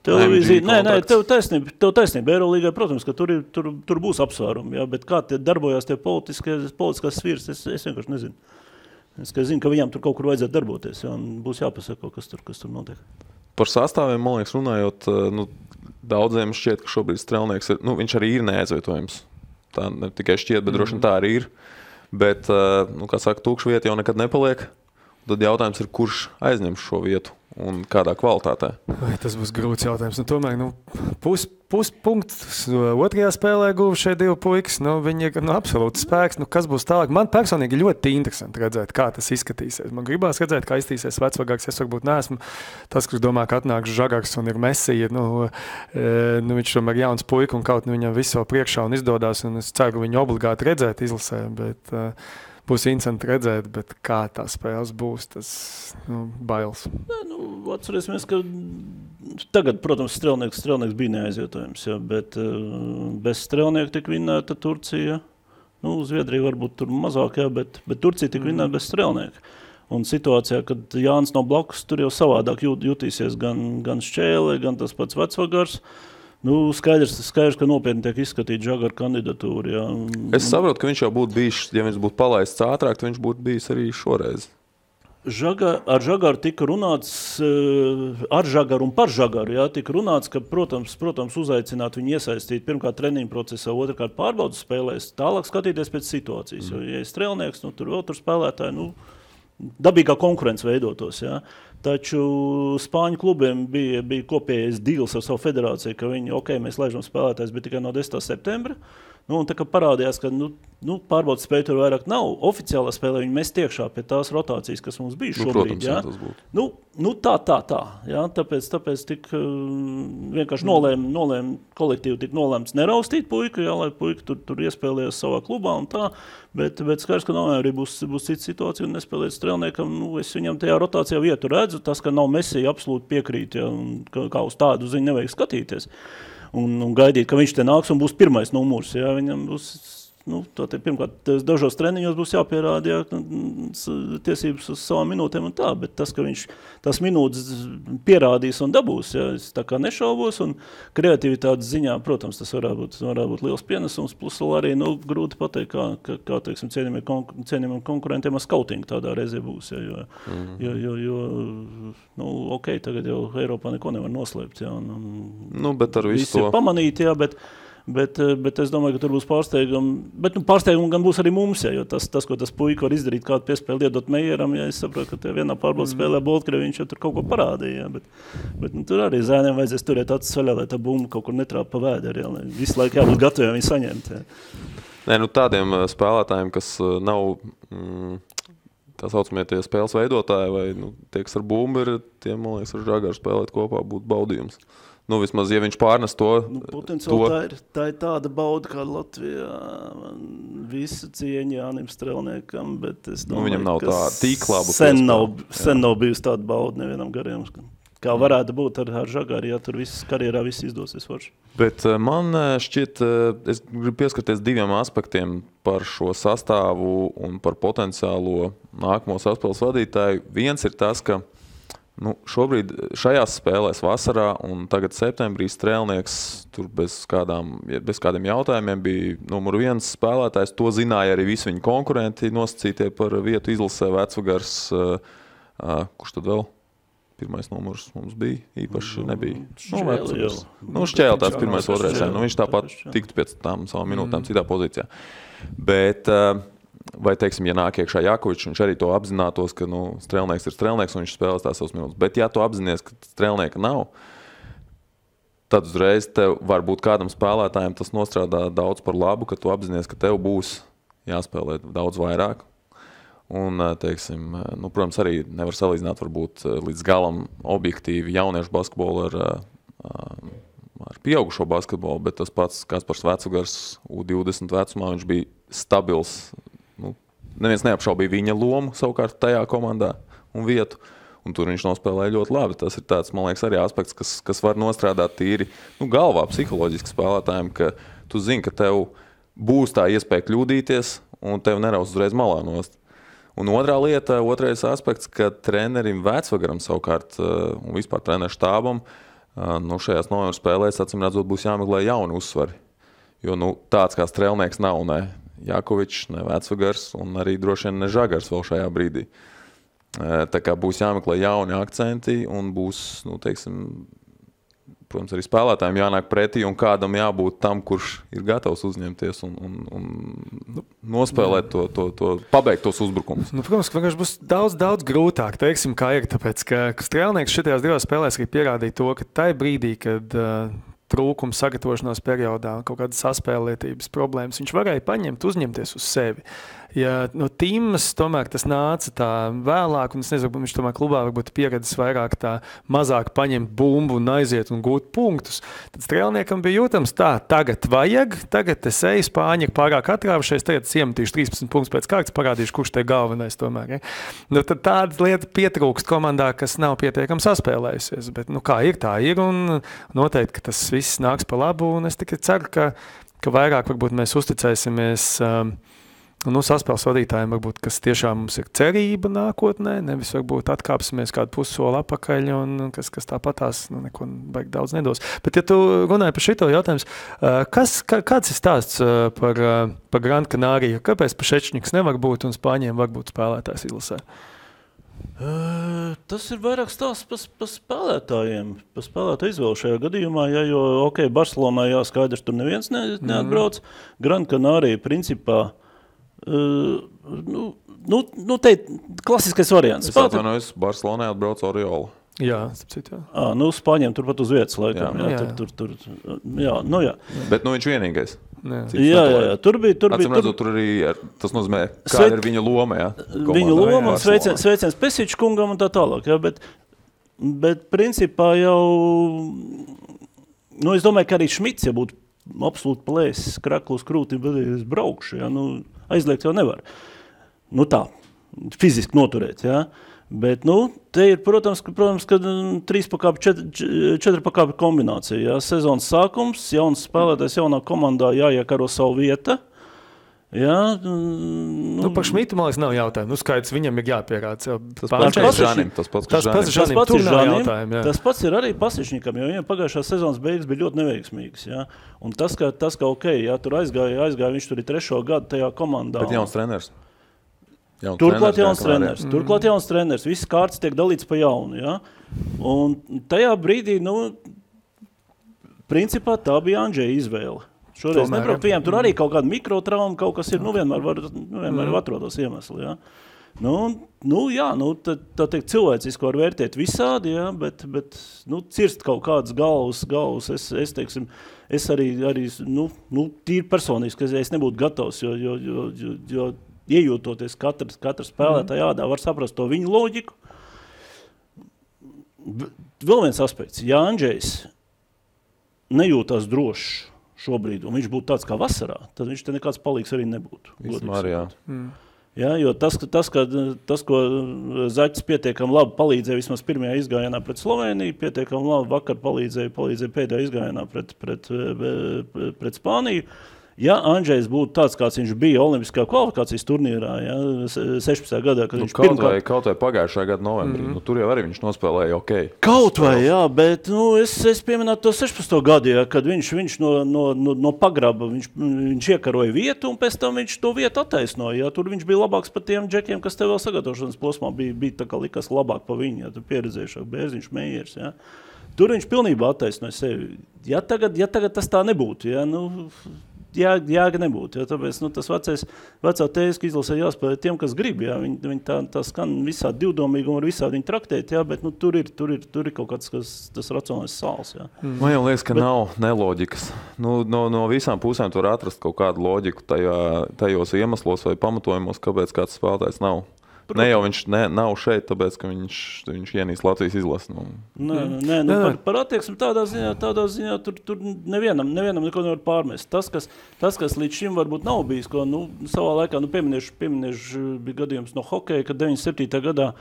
Televīzija, tev taisnība. Eirolīgai, protams, ka tur būs apsvērumi, jā, bet kā te darbojās tie politiskās sfīras, es vienkārši nezinu. Es zinu, ka viņam tur kaut kur vajadzētu darboties, jo būs jāpasaka, kas tur notiek. Par sastāviem, man liekas, runājot, daudziem šķiet, ka šobrīd Strelnieks ir, viņš arī ir neaizvietojams. Tā ne tikai šķiet, bet droši vien tā arī ir. Bet, kā saka, tukša vieta jau nekad nepaliek. Tad jautājums ir, kurš aizņems šo vietu un kādā kvalitātē? Tas būs grūts jautājums. Tomēr puspunkts otrajā spēlē guva šie divi puikas. Viņi ir absolūti spēks. Kas būs tālāk? Man personīgi ļoti interesanti redzēt, kā tas izskatīsies. Man gribās redzēt, kā izskatīsies Vecvagars. Es varbūt neesmu tas, kurš domā, ka atnāks Žagars un ir Mesija. Viņš tomēr jauns puika un kaut viņam visu priekšā un izdodās. Un es ceru, viņu obligāti redzēt izlasē. Bet, būs interesanti redzēt, bet kā tā spēles būs, tas bailes. Atcerēsimies, ka tagad, protams, Strelnieks bija neaizvietojams, bet bez Strelnieka tika vinnēta Turcija. Zviedrija varbūt tur mazāk, bet Turcija tika vinnēta bez Strelnieka. Un situācijā, kad Jānis nav blakus, tur jau savādāk jutīsies gan Šķēle, gan tas pats Vecvagars. Skaidrs, ka nopietni tiek izskatīta Žagara kandidatūra. Jā. Es saprotu, ka viņš jau būtu bijis, ja viņš būtu palaists ātrāk, tad viņš būtu bijis arī šoreiz. Ar Žagaru tika runāts, ar Žagaru un par Žagaru, tika runāts, ka, protams, uzaicināt viņu iesaistīt pirmkārt treniņu procesā, otrkārt pārbaudas spēlēs, tālāk skatīties pēc situācijas. Jo, ja ir Strelnieks, tur vēl tur spēlētāji, dabīgā konkurence veidotos, jā. Taču Spāņu klubiem bija kopējais deals ar savu federāciju, ka viņi, mēs laižam spēlētājs, bet tikai no 10. septembra. Un tā kā parādījās, ka pārbaudas spēja tur vairāk nav, oficiālā spēlē viņi mest iekšā pie tās rotācijas, kas mums bija šobrīd. Protams, jā, tas būtu. Tā. Jā, tāpēc tik vienkārši nolēma kolektīvi tik nolēmts neraustīt puiku, jā, lai puika tur iespēlējas savā klubā un tā. Bet skaidrs, ka novembrī būs cita situācija un nespēlēt Strelniekam. Es viņam tajā rotācijā vietu redzu. Tas, ka nav Mesija, absolūti piekrīt, ja, un kā uz tādu ziņu nevajag skatīties. Un gaidīt, ka viņš te nāks un būs pirmais numurs. Ja, viņam būs, pirmkārt, dažos treniņos būs jāpierāda tiesības uz savām minūtēm un tā, bet tas, ka viņš tās minūtes pierādīs un dabūs, ja, es tā kā nešaubos, un kreativitātes ziņā, protams, tas varētu būt liels pienesums, plus arī, grūti pateikt, kā teiksim, cienījumiem konkurentiem ar skautingu tādā reizē būs, ja, jo tagad jau Eiropā neko nevar noslēpt, ja, bet ar visu to pamanīt, jā, bet es domāju, ka tur būs pārsteigumi. Bet pārsteigumi gan būs arī mums, ja, jo tas, ko tas puika var izdarīt, kādu piespēli iedot Meieram, ja es saprotu, ka vienā pārbaudas spēlē Boltkrievi viņš jau tur kaut ko parādīja. Ja, bet tur arī zēniem vajadzēs turēt acis vaļā, lai tā bumba kaut kur netrāpa pa vēderi, ja, lai visu laiku jābūt gataviem viņu saņemt. Ja. Tādiem spēlētājiem, kas nav tā saucamie tie spēles veidotāji vai tie, kas ar bumbu ir, tiem, man liekas, ar Žagaru spēlēt kopā būtu baudījums. Vismaz, ja viņš pārnes to... Potenciāli tā ir tāda bauda, kā Latvijā visu cieņu Jānim Strelniekam, bet es domāju, viņam nav tā tik laba sen nav bijusi tāda bauda nevienam gariem. Kā varētu būt ar Žagaru, ja tur karjerā viss izdosies forši. Bet man šķiet, es gribu pieskarties diviem aspektiem par šo sastāvu un par potenciālo nākamo saspēles vadītāju. Viens ir tas, ka šobrīd šajās spēlēs vasarā un tagad septembrī Strelnieks tur bez kādiem jautājumiem bija numur 1 spēlētājs. To zināja arī visi viņa konkurenti nosacītie par vietu izlasē. Vecvagars, kurš tad vēl? Pirmais numurs mums bija, īpaši nebija. Šķēle tāds pirmais, otrais. Viņš tāpat tiktu pēc tām savām minūtēm citā pozīcijā. Bet... Vai, teiksim, ja nāk iekšā Jakovičs, viņš arī to apzinātos, ka Strelnieks ir Strelnieks un viņš spēlēs tās savas minūtes. Bet ja tu apzinies, ka Strelnieka nav, tad uzreiz tev varbūt kādam spēlētājiem tas nostrādā daudz par labu, ka tu apzinies, ka tev būs jāspēlē daudz vairāk. Un, teiksim, protams, arī nevar salīdzināt varbūt līdz galam objektīvi jauniešu basketbolu ar pieaugušo basketbolu, bet tas pats Kaspars Vecvagars U20 vecumā, viņš bija stabils. Neviens neapšaubīja viņa lomu savukārt tajā komandā un vietu, un tur viņš nospēlēja ļoti labi. Tas ir tāds, man liekas, arī aspekts, kas var nostrādāt tīri galvā psiholoģiski spēlētājiem, ka tu zini, ka tev būs tā iespēja kļūdīties un tev neraus uzreiz malā nost. Un otrais aspekts, ka trenerim Vecvagaram savukārt un vispār treneru štābam šajās novembra spēlēs, acīm redzot, būs jāmeklē jauni uzsvari. Jo tāds kā Strelnieks nav, ne. Jakovičs, ne Vecvagars un arī droši vien ne Žagars vēl šajā brīdī. Tā kā būs jāmeklē jauni akcenti un būs, protams, arī spēlētājiem jānāk pretī un kādam jābūt tam, kurš ir gatavs uzņemties un nospēlēt to pabeigt tos uzbrukumus. Protams, ka vienkārši būs daudz grūtāk, teiksim, kā ir, tāpēc, ka Strēlnieks šitajās divās spēlēs arī pierādīja to, ka tai brīdī, kad trūkums sagatavošanās periodā, kaut kādas saspēlētības problēmas, viņš varēja uzņemties uz sevi. Ja no Timas tomēr tas nāca tā vēlāk, un es nezinu, viņš tomēr klubā varbūt pieredzis vairāk tā mazāk paņemt bumbu un aiziet un gūt punktus, tad Strēlniekam bija jūtams tā, tagad es eju, Spāņi ir pārāk atrāvušies, tagad es iemetīšu 13 punktus pēc kārtas, parādīšu, kurš te galvenais tomēr. Ja? Nu, tad tāda lieta pietrūkst komandā, kas nav pietiekami saspēlējusies, bet kā ir, tā ir, un noteikti, ka tas viss nāks pa labu, un es tikai ceru, ka vairāk varbūt mēs uzticēsimies saspēles vadītājiem, varbūt, kas tiešām mums ir cerība nākotnē, nevis varbūt atkāpsimies kādu pussoli apakaļ, un kas tāpatās neko baigi daudz nedos. Bet, ja tu runāji par šito jautājums, kāds ir stāsts par Gran Canāriju? Kāpēc Pašečņiks nevar būt un Spāņiem var būt spēlētājs izlasē? Tas ir vairāk stāsts par spēlētājiem, par spēlētāju izvēlu šajā gadījumā, jo, Barcelonā jāskaidrs, tur neviens neatbrauc. Gran Canārija principā te klasiskais variants. Es atvainojos, Barcelonā atbrauc Oriola. Jā, Spāņiem turpat uz vietas laikam. Jā. Bet viņš vienīgais. Jā. Tur arī tas nozīmē, kāda ir viņa loma. Jā, viņa loma un sveiciens Pesiča kungam un tā tālāk. Jā, bet principā jau, es domāju, ka arī Šmits, ja būtu absolūti plēsis kraklu uz krūti, bet es braukšu, jā, aizliegt jau nevar. Tā, fiziski noturēt, jā. Bet, te ir, protams, ka 3 pakāpju, 4 pakāpju kombinācija, jā. Sezonas sākums, jauns spēlētājs jaunā komandā jāiekaro savu vieta. Jā. Par Šmitu, man liekas, nav jautājumu. Skaidrs, viņam ir jāpierāda. Tas pats Žanim. Tas pats ir arī Pasišņikam, jo viņam pagājušās sezonas beigas bija ļoti neveiksmīgas. Jā. Un tas, ka jā, tur aizgāja, viņš tur ir 3. gadu tajā komandā. Bet jauns treneris. Turklāt jauns treneris. Viss kārtas tiek dalīts pa jaunu. Jā. Un tajā brīdī, principā tā bija Andžeja izvēle. Šoreiz nebraukt viņiem, tur arī kaut kāda mikrotrauma, kaut kas ir, vienmēr var atrodas iemesli, jā. Tā teikt, cilvēciski var vērtēt visādi, jā, bet cirst kaut kādas galvas, es arī tīri personiski, es nebūtu gatavs, jo iejūtoties katra spēlētāja ādā, var saprast to viņu loģiku. Vēl viens aspekts, ja Andžejs nejūtās drošs šobrīd, un viņš būtu tāds kā vasarā, tad viņš te nekāds palīgs arī nebūtu. Vismēr, jā. Jā, jo tas, ko Zaķis pietiekami labi palīdzēja vismaz pirmajā izgājienā pret Sloveniju, pietiekami labi vakar palīdzēja pēdējā izgājienā pret Spāniju. Ja Andžejs būtu tāds, kāds viņš bija olimpiskā kvalifikācijas turnīrā, ja, 16. gadā, kad viņš kaut vai pagājušajā gada novembrī, tur jau arī viņš nospēlēja Kaut vai, jā, bet es pieminētu to 16. gadu, ja, kad viņš no pagraba, viņš iekaroja vietu un pēc tam viņš to vietu attaisnoja. Ja, tur viņš bija labāks par tiem džekiem, kas tev vēl sagatavošanas posmā bija tā kā likas labāk par viņu, ja, tur pieredzējušāk Bērziņš, Meijers. Ja. Tur viņš pilnībā attaisnoja sevi. Ja tagad tas tā nebūtu, ja, jāga nebūtu, ja, tāpēc tas vecā tēska izlasē jāspēlē tiem, kas grib, ja, viņi tā skan visādi divdomīgi un var visādi viņu traktēt, ja, bet tur ir kaut kāds tas racionālais sāls. Ja. Man jau liekas, ka nav neloģikas. No visām pusēm tu var atrast kaut kādu loģiku tajos iemeslos vai pamatojumos, kāpēc kāds spēlētājs nav. Ne jau viņš nav šeit, tāpēc, ka viņš ienīs Latvijas izlasi. Par attieksmi tādā ziņā tur nevienam neko nevar pārmest. Tas, kas līdz šim varbūt nav bijis, ko savā laikā, pieminēšu bija gadījums no hokeja, kad 97. gadā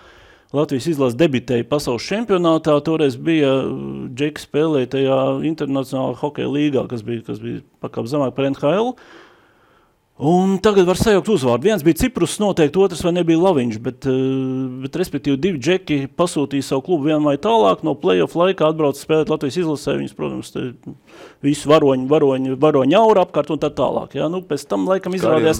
Latvijas izlase debitēja pasaules čempionātā, toreiz bija Džeki spēlēja tajā internacionālā hokeja līgā, kas bija pakāp zemāk par NHL. Un tagad var sajaukt uzvārdu. Viens bija Ciprus noteikti, otrs vai nebija Laviņš, bet respektīvi 2 džeki pasūtīja savu klubu vien vai tālāk, no play-off laikā atbrauc spēlēt Latvijas izlasē, viņas, protams, visu varoņu aura apkārt un tā tālāk. Ja? Nu, pēc tam laikam izrādījās,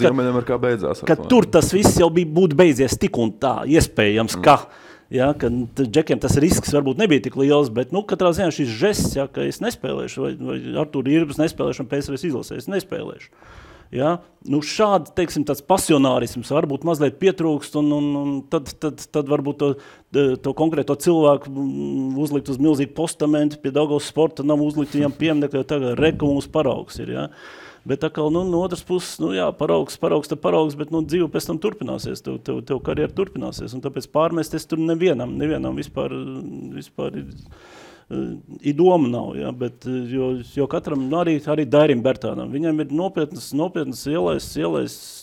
ka tur tas viss jau būtu beidzies tik un tā, iespējams, ka džekiem tas risks varbūt nebija tik liels, bet katrā ziņā šis žests, ka es nespēlēšu, vai Artūra Irbas nespēlēšu un PSRS izlasē, es nespēlēšu. Ja? Šādi, teiksim, tāds pasionārisms varbūt mazliet pietrūkst, un tad varbūt to konkrēto cilvēku uzlikt uz milzīgu postamentu, pie Daugavas sporta nav uzlikt viņam pieminekļu, jo tagad reka mums paraugs ir, ja? Bet atkal, no otras puses, paraugs, bet dzīve pēc tam turpināsies, tev karjera turpināsies, un tāpēc pārmesties tur nevienam vispār doma nav, ja, bet jo katram, arī Dairim Bertānam, viņam ir nopietnas ielais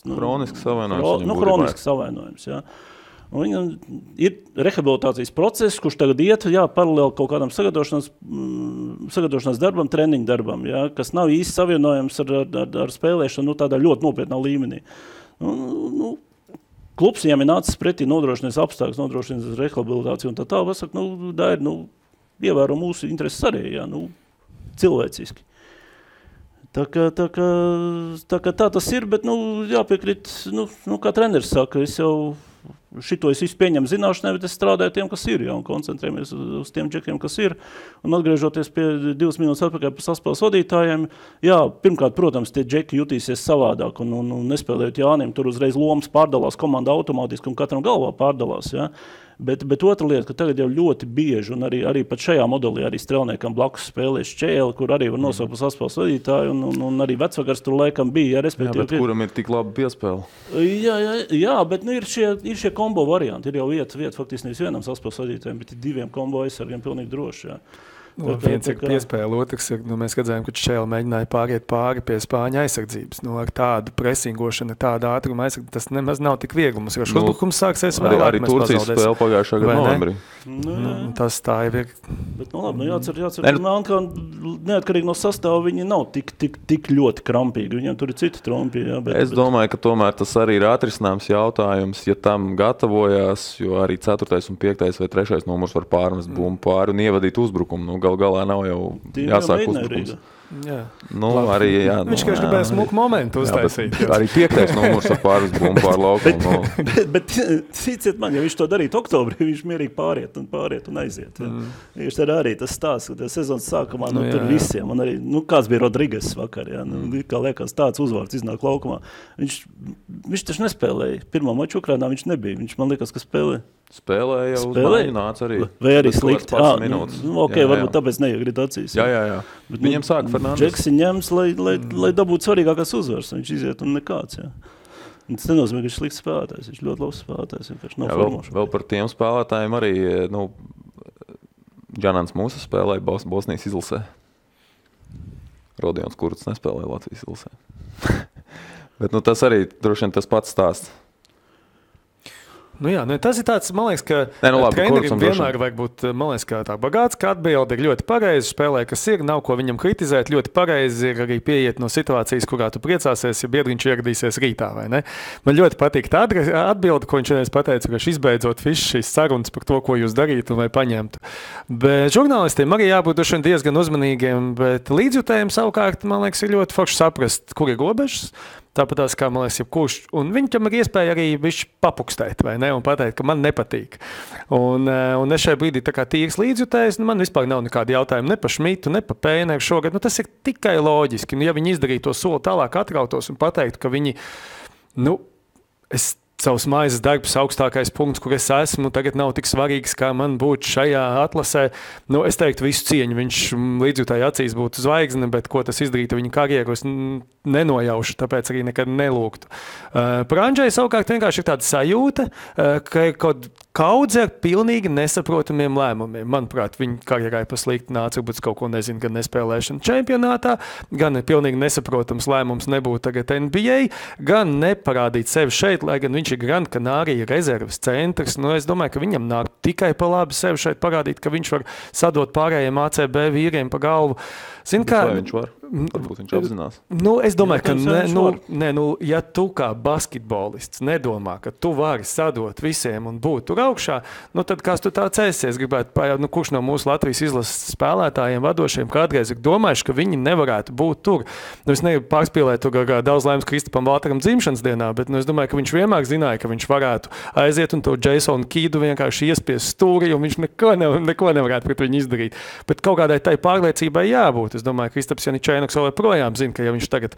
kronisks savainojums. Kronisks savainojums, ja. Un viņam ir rehabilitācijas process, kurš tagad iet, paralēli kaut kādam sagatavošanās darbam, treniņu darbam, ja, kas nav īsti savienojams ar spēlēšanu tādā ļoti nopietnā līmenī. Klubs viņam ir nācis pretī nodrošinās apstākļus, nodrošinās rehabilitāciju un tā, pasaka, Dairi, ievēro mūsu intereses arī, cilvēciski. Tā kā tas ir, bet, jāpiekrīt, kā treneris saka, šito es visu pieņemu zināšanai, bet es strādāju tiem, kas ir, un koncentrējamies uz tiem džekiem, kas ir. Un atgriežoties pie 2 minūtes atpakaļ par saspēles vadītājiem, pirmkārt, protams, tie džeki jutīsies savādāk, un nespēlējot Jānim, tur uzreiz lomas pārdalās, komanda automātiski un katram galvā pārdalās, Bet otra lieta, ka tagad jau ļoti bieži, un arī pat šajā modelī arī strelniekam blakus spēlē Šķēli, kur arī var nosaukt par saspēles vadītāju, un arī vecvakars tur laikam bija, respektīvi. Bet kuram ir tik labi piespēle? Jā, bet ir šie kombo varianti. Ir jau vieta faktiski nevis vienam saspēles vadītājiem, bet ir 2 kombo aizsargiem pilnīgi droši, Viens ir piespēle, otrs ir, mēs redzējām, ka Šķēle mēģināja pāriet pāri pie Spāņu aizsardzības. Ar tādu presingošanu, tādu ātrumu aizsardzību, tas nemaz nav tik viegli. Mums uzbrukums sāksies vēlāk. Arī Turcijas spēle pagājušā gada novembrī. Tas tā ir. Bet, labi, jācer, ka neatkarīgi no sastāva viņi nav tik ļoti krampīgi. Viņiem tur ir citi trompi. Es domāju, ka tomēr tas arī ir atrisināms jautājums, ja tam gatavojās, jo arī 4. un 5. vai 3. numurs var pārmest bumbu pāri un ievadīt uzbrukumu. Gal galā nav jau jāsāk uzbrukums. Arī, viņš gribēja smuku momentu uztaisīt. Arī 5. numurs ar pāris bumbu pār laukumu. Bet ciciet man, ja viņš to darīt oktobrī, viņš mierīgi pāriet un aiziet. Viņš arī tas stāsts, ka sezonas sākumā tur visiem, un arī, kāds bija Rodriges vakar, kā liekas tāds uzvārds iznāk laukumā. Viņš taču nespēlēja. Pirmā maču Ukrainā viņš nebija. Viņš man liekas, ka Spēlēja uz maiņu nāca arī. Vai arī slikti. Varbūt tāpēc neiegrīt acīs. Jā. Bet viņam sāka Fernandes. Džeksi ņems, lai dabūtu svarīgākās uzvaras. Viņš iziet un nekāds, Tas nenozīmē, ka viņš slikts spēlētājs. Viņš ļoti labs spēlētājs. Vēl par tiem spēlētājiem arī, Džanans Mūsa spēlēja Bosnijas izlasē. Rodions Kurts nespēlēja Latvijas izlasē. Bet tas arī droši vien tas pats stāsts. Tas ir tāds, man liekas, ka trenerim vienmēr vajag būt, man liekas, kā tā bagāts, ka atbilde ir ļoti pareizi, spēlē, kas ir, nav ko viņam kritizēt, ļoti pareizi ir arī pieiet no situācijas, kurā tu priecāsies, ja biedriņš ieradīsies rītā, vai ne? Man ļoti patīk tā atbilde, ko viņš vienreiz pateica, ka izbeidzot šīs sarunas par to, ko jūs darītu un vai paņemtu. Bet žurnālistiem arī jābūt diezgan uzmanīgiem, bet līdzjutējiem savukārt, man liekas, ir ļoti forši saprast, kur ir robežas. Tāpat tās, kā man liekas, jebkurš. Un viņam ir iespēja arī papukstēt, vai ne, un pateikt, ka man nepatīk. Un es šajā brīdī tā kā tīrs līdzjutējs, man vispār nav nekādi jautājumi ne par Šmitu, ne par Pēneru šogad. Tas ir tikai loģiski. Ja viņi izdarītu to soli tālāk atrautos un pateiktu, ka viņi, savs maizes darbs augstākais punkts, kur es esmu, tagad nav tik svarīgs, kā man būtu šajā atlasē. Es teiktu visu cieņu, viņš līdzjūtāji acīs būtu zvaigzne, bet ko tas izdarītu viņa karjeru, es nenojaušu, tāpēc arī nekad nelūgtu. Par Andžeju savukārt vienkārši ir tāda sajūta, ka ir kaut kaudze ar pilnīgi nesaprotamiem lēmumiem. Manuprāt, viņa karjerai paslikti nāca, varbūt kaut ko nezinu, gan nespēlēšana čempionātā, gan pilnīgi nesaprotams lēmums nebūt tagad NBA, gan neparādīt sevi šeit, lai gan viņš ir Gran Canaria rezerves centrs. Es domāju, ka viņam nāk tikai pa labi sevi šeit parādīt, ka viņš var sadot pārējiem ACB vīriem pa galvu. Vai viņš var? Varbūt viņš apzinās. Es domāju, ka ja tu kā basketbolists nedomā, ka tu vari sadot visiem un būt tur augšā, tad kāds tu tāds esi? Gribētu pajaut, kurš no mūsu Latvijas izlases spēlētājiem vadošiem kādreiz ir domājuši, ka viņi nevarētu būt tur. Es negribu pārspīlēt tur daudz laimes Kristapam Valtaram dzimšanas dienā, bet es domāju, ka viņš vienmēr zināja, ka viņš varētu aiziet un to Jasonu Kidu vienkārši iespiest stūri, un viņš neko nevarētu pret viņu izdarīt. Bet kaut kādai tai pārliecībai jābūt. Es domāju, ka Kristaps Janičēnoks vēl projām zina, ka ja viņš tagad,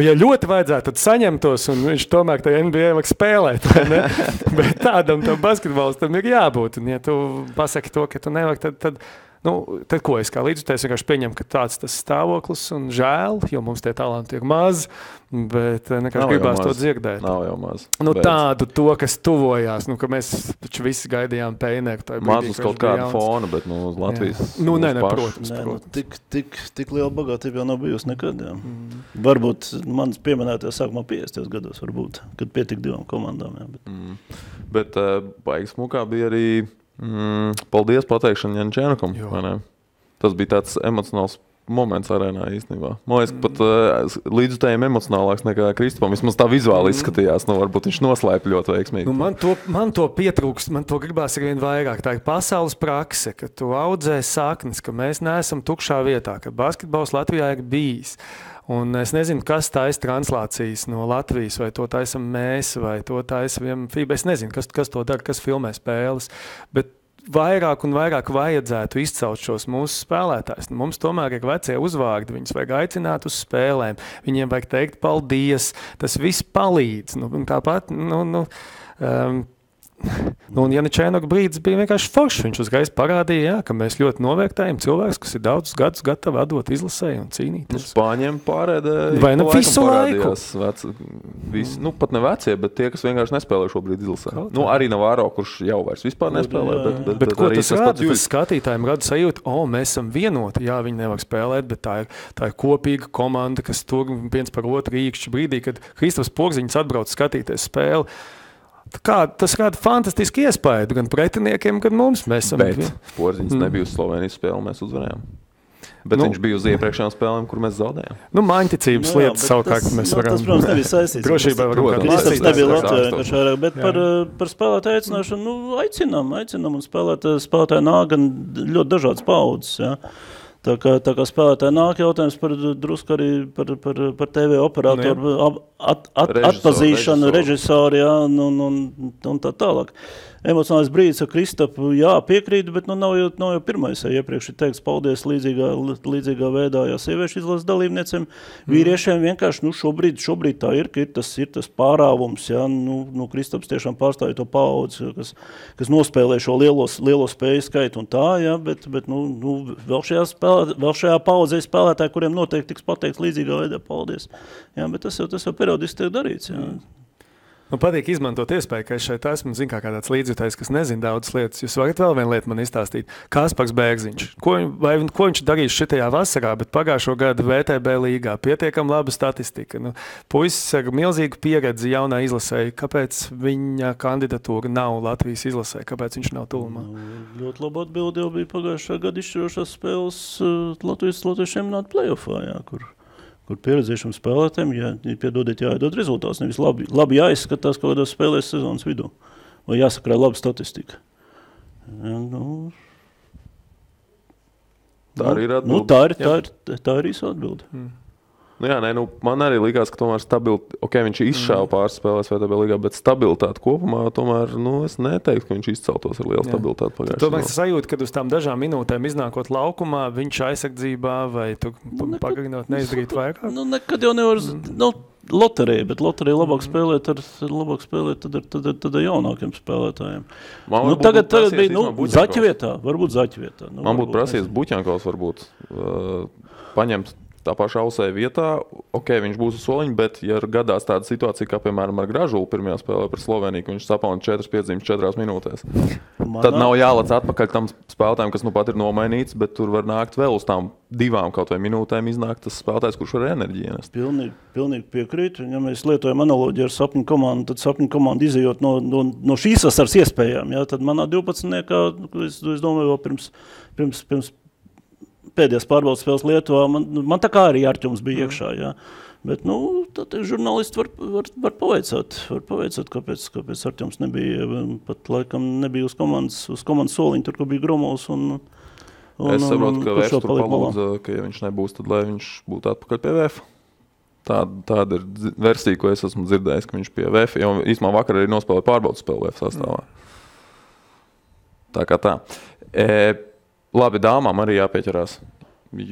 ja ļoti vajadzētu, tad saņemtos, un viņš tomēr tajā NBA var spēlēt, vai ne? Bet tādam basketbolistam ir jābūt. Un ja tu pasaki to, ka tu nevari, tad ko es kā līdzjutējs vienkārši pieņemu, ka tāds tas stāvoklis un žēl, jo mums tie talanti ir maz, bet nekāds gribās to dzirdēt. Nav jau maz. Tādu to, kas tuvojās, ka mēs taču visi gaidījām Peineru. Maz uz kaut kādu fonu, bet uz Latvijas. Protams. Tik liela bagātība jau nav bijusi nekad. Varbūt manas pieminētajā sākumā 50. gados varbūt, kad pietika 2 komandām. Bet baigas mukā bija arī paldies pateikšana Janičēnokam. Tas bija tāds emocionāls moments arēnā īstenībā. Man liekas, pat līdzutējiem emocionālāks nekā Kristupam. Vismaz tā vizuāli izskatījās. Varbūt viņš noslēpa ļoti veiksmīgi. Man to pietrūkst, man to gribās arvien vairāk. Tā ir pasaules prakse, ka tu audzē saknes, ka mēs neesam tukšā vietā, ka basketbols Latvijā ir bijis. Un es nezinu, kas taisa translācijas no Latvijas, vai to taisam mēs, vai to taisam FIBA. Es nezinu, kas to dara, kas filmē spēles, bet vairāk un vairāk vajadzētu izcelt šos mūsu spēlētājus. Mums tomēr ir vecie uzvārdi, viņus vajag aicināt uz spēlēm, viņiem vajag teikt paldies, tas viss palīdz. Tāpat, un Janičēnoka brīdis bija vienkārši foršs. Viņš uzreiz parādīja, ka mēs ļoti novērtējam cilvēkus, kas ir daudzus gadus gatavi atdot izlasēji un cīnīties. Spāņiem pārēdē visu laiku. Pat ne vecie, bet tie, kas vienkārši nespēlē šobrīd izlasē. Arī Navarro, kurš jau vairs vispār nespēlē. Bet ko tas rāda? Tas skatītājiem rada sajūtu, mēs esam vienoti. Jā, viņi nevar spēlēt, bet tā ir kopīga komanda, kas tur viens par otru īkšķi brīdī, kad Kristaps Porziņš atbrauc skatīties spēli. Tas rada fantastiski iespēju gan pretiniekiem, gan mums. Bet Porziņš nebija uz Slovenijas spēli, mēs uzvarējām. Bet viņš bija uz iepriekšējām spēlēm, kur mēs zaudējām. Māņticības lietas savukārt mēs varam. Tas, protams, nebija saistīts. Drošībā varam Kristaps nebija Latvijā, bet par spēlētāju aicināšanu, aicinām un spēlētāji nāk gan ļoti dažādas paudzes, jā. Tā kā spēlētāji nāk jautājums drusku arī par TV operatoru atpazīšanu, režisoru, jā, un tā tālāk. Emocionālais brīdis ar Kristapu, piekrītu, bet nav jau pirmais. Iepriekš ir teikts paldies līdzīgā veidā, sieviešu izlases dalībniecēm. Vīriešiem vienkārši, šobrīd tā ir, ka ir tas pārāvums, Kristaps tiešām pārstāja to paudzi, kas nospēlē šo lielo spēju skaitu un tā, bet vēl šajā paudzē spēlētāji, kuriem noteikti tiks pateikts līdzīgā veidā paldies. Jā, bet tas jau periodiski tiek darīts, jā. Man patīk izmantot iespēju, ka es šeit esmu, kā tāds līdzjutējs, kas nezina daudzas lietas. Jūs varat vēl vienu lietu man izstāstīt. Kaspars Bērziņš. Ko viņš darīs šitajā vasarā, bet pagājušo gadu VTB līgā pietiekam laba statistika. Puisis ar milzīgu pieredzi jaunā izlasēja. Kāpēc viņa kandidatūra nav Latvijas izlasē? Kāpēc viņš nav tuvumā? Ļoti laba atbilde jau bija pagājušā gada izšķirošās spēles Latvijas čempionāta play-offā, kur pieredzējušiem spēlētājiem, jāiedod rezultāts. Nevis labi jāizskatās kaut kādās spēlēs sezonas vidū. Vai jāsakrāj laba statistika. Tā arī ir atbilde. Tā ir īsa atbilde. Man arī likās, ka tomēr viņš izšāva pāris spēlēs VTB līgā, bet stabilitāte kopumā tomēr, es neteiktu, ka viņš izceltos ar lielu stabilitāti pagājušajā. Tomēr sajūta, kad uz tām dažām minūtēm iznākot laukumā, viņš aizsardzībā vai tu pagarinot neizdarīt vairāk? Nekad jau nevar, loterija, bet loterija labāk spēlēt tad ar jaunākiem spēlētājiem. Tagad bija, Zaķa vietā, varbūt Zaķa vietā. Man būtu prasījies Buķjankovs varbūt paņemt tā pašā Ausē vietā, viņš būs uz soliņa, bet ja gadās tāda situācija, kā piemēram ar Gražulu pirmajā spēlē par Sloveniju, ka viņš sapauna 4 piedziņas 4 minūtēs. Tad nav jālec atpakaļ tam spēlētājiem, kas pat ir nomainīts, bet tur var nākt vēl uz tām 2 kaut vai minūtēm iznākt tas spēlētājs, kurš var enerģiju ienest. Pilnīgi piekrītu. Ja mēs lietojam analoģiju ar sapņu komandu, tad sapņu komanda izejot no šīs vasaras iespējām, tad manā 12. es domāju, vēl pēdējās pārbaudas spēles Lietuvā, man tā kā arī Arķums bija iekšā, jā. Bet, tad žurnālisti var pavaicāt, kāpēc Arķums nebija, pat laikam nebija uz komandas soliņa, tur, kur bija Gromovs Es saprotu, ka Vēfs tur palūdza, ka ja viņš nebūs, tad lai viņš būtu atpakaļ pie VF. Tāda ir versija, ko es esmu dzirdējis, ka viņš pie VF, jo īstumā vakar arī nospēlēja pārbaudas spēli VF sastāvā. Tā kā tā. Labi, dāmām arī jāpieķerās,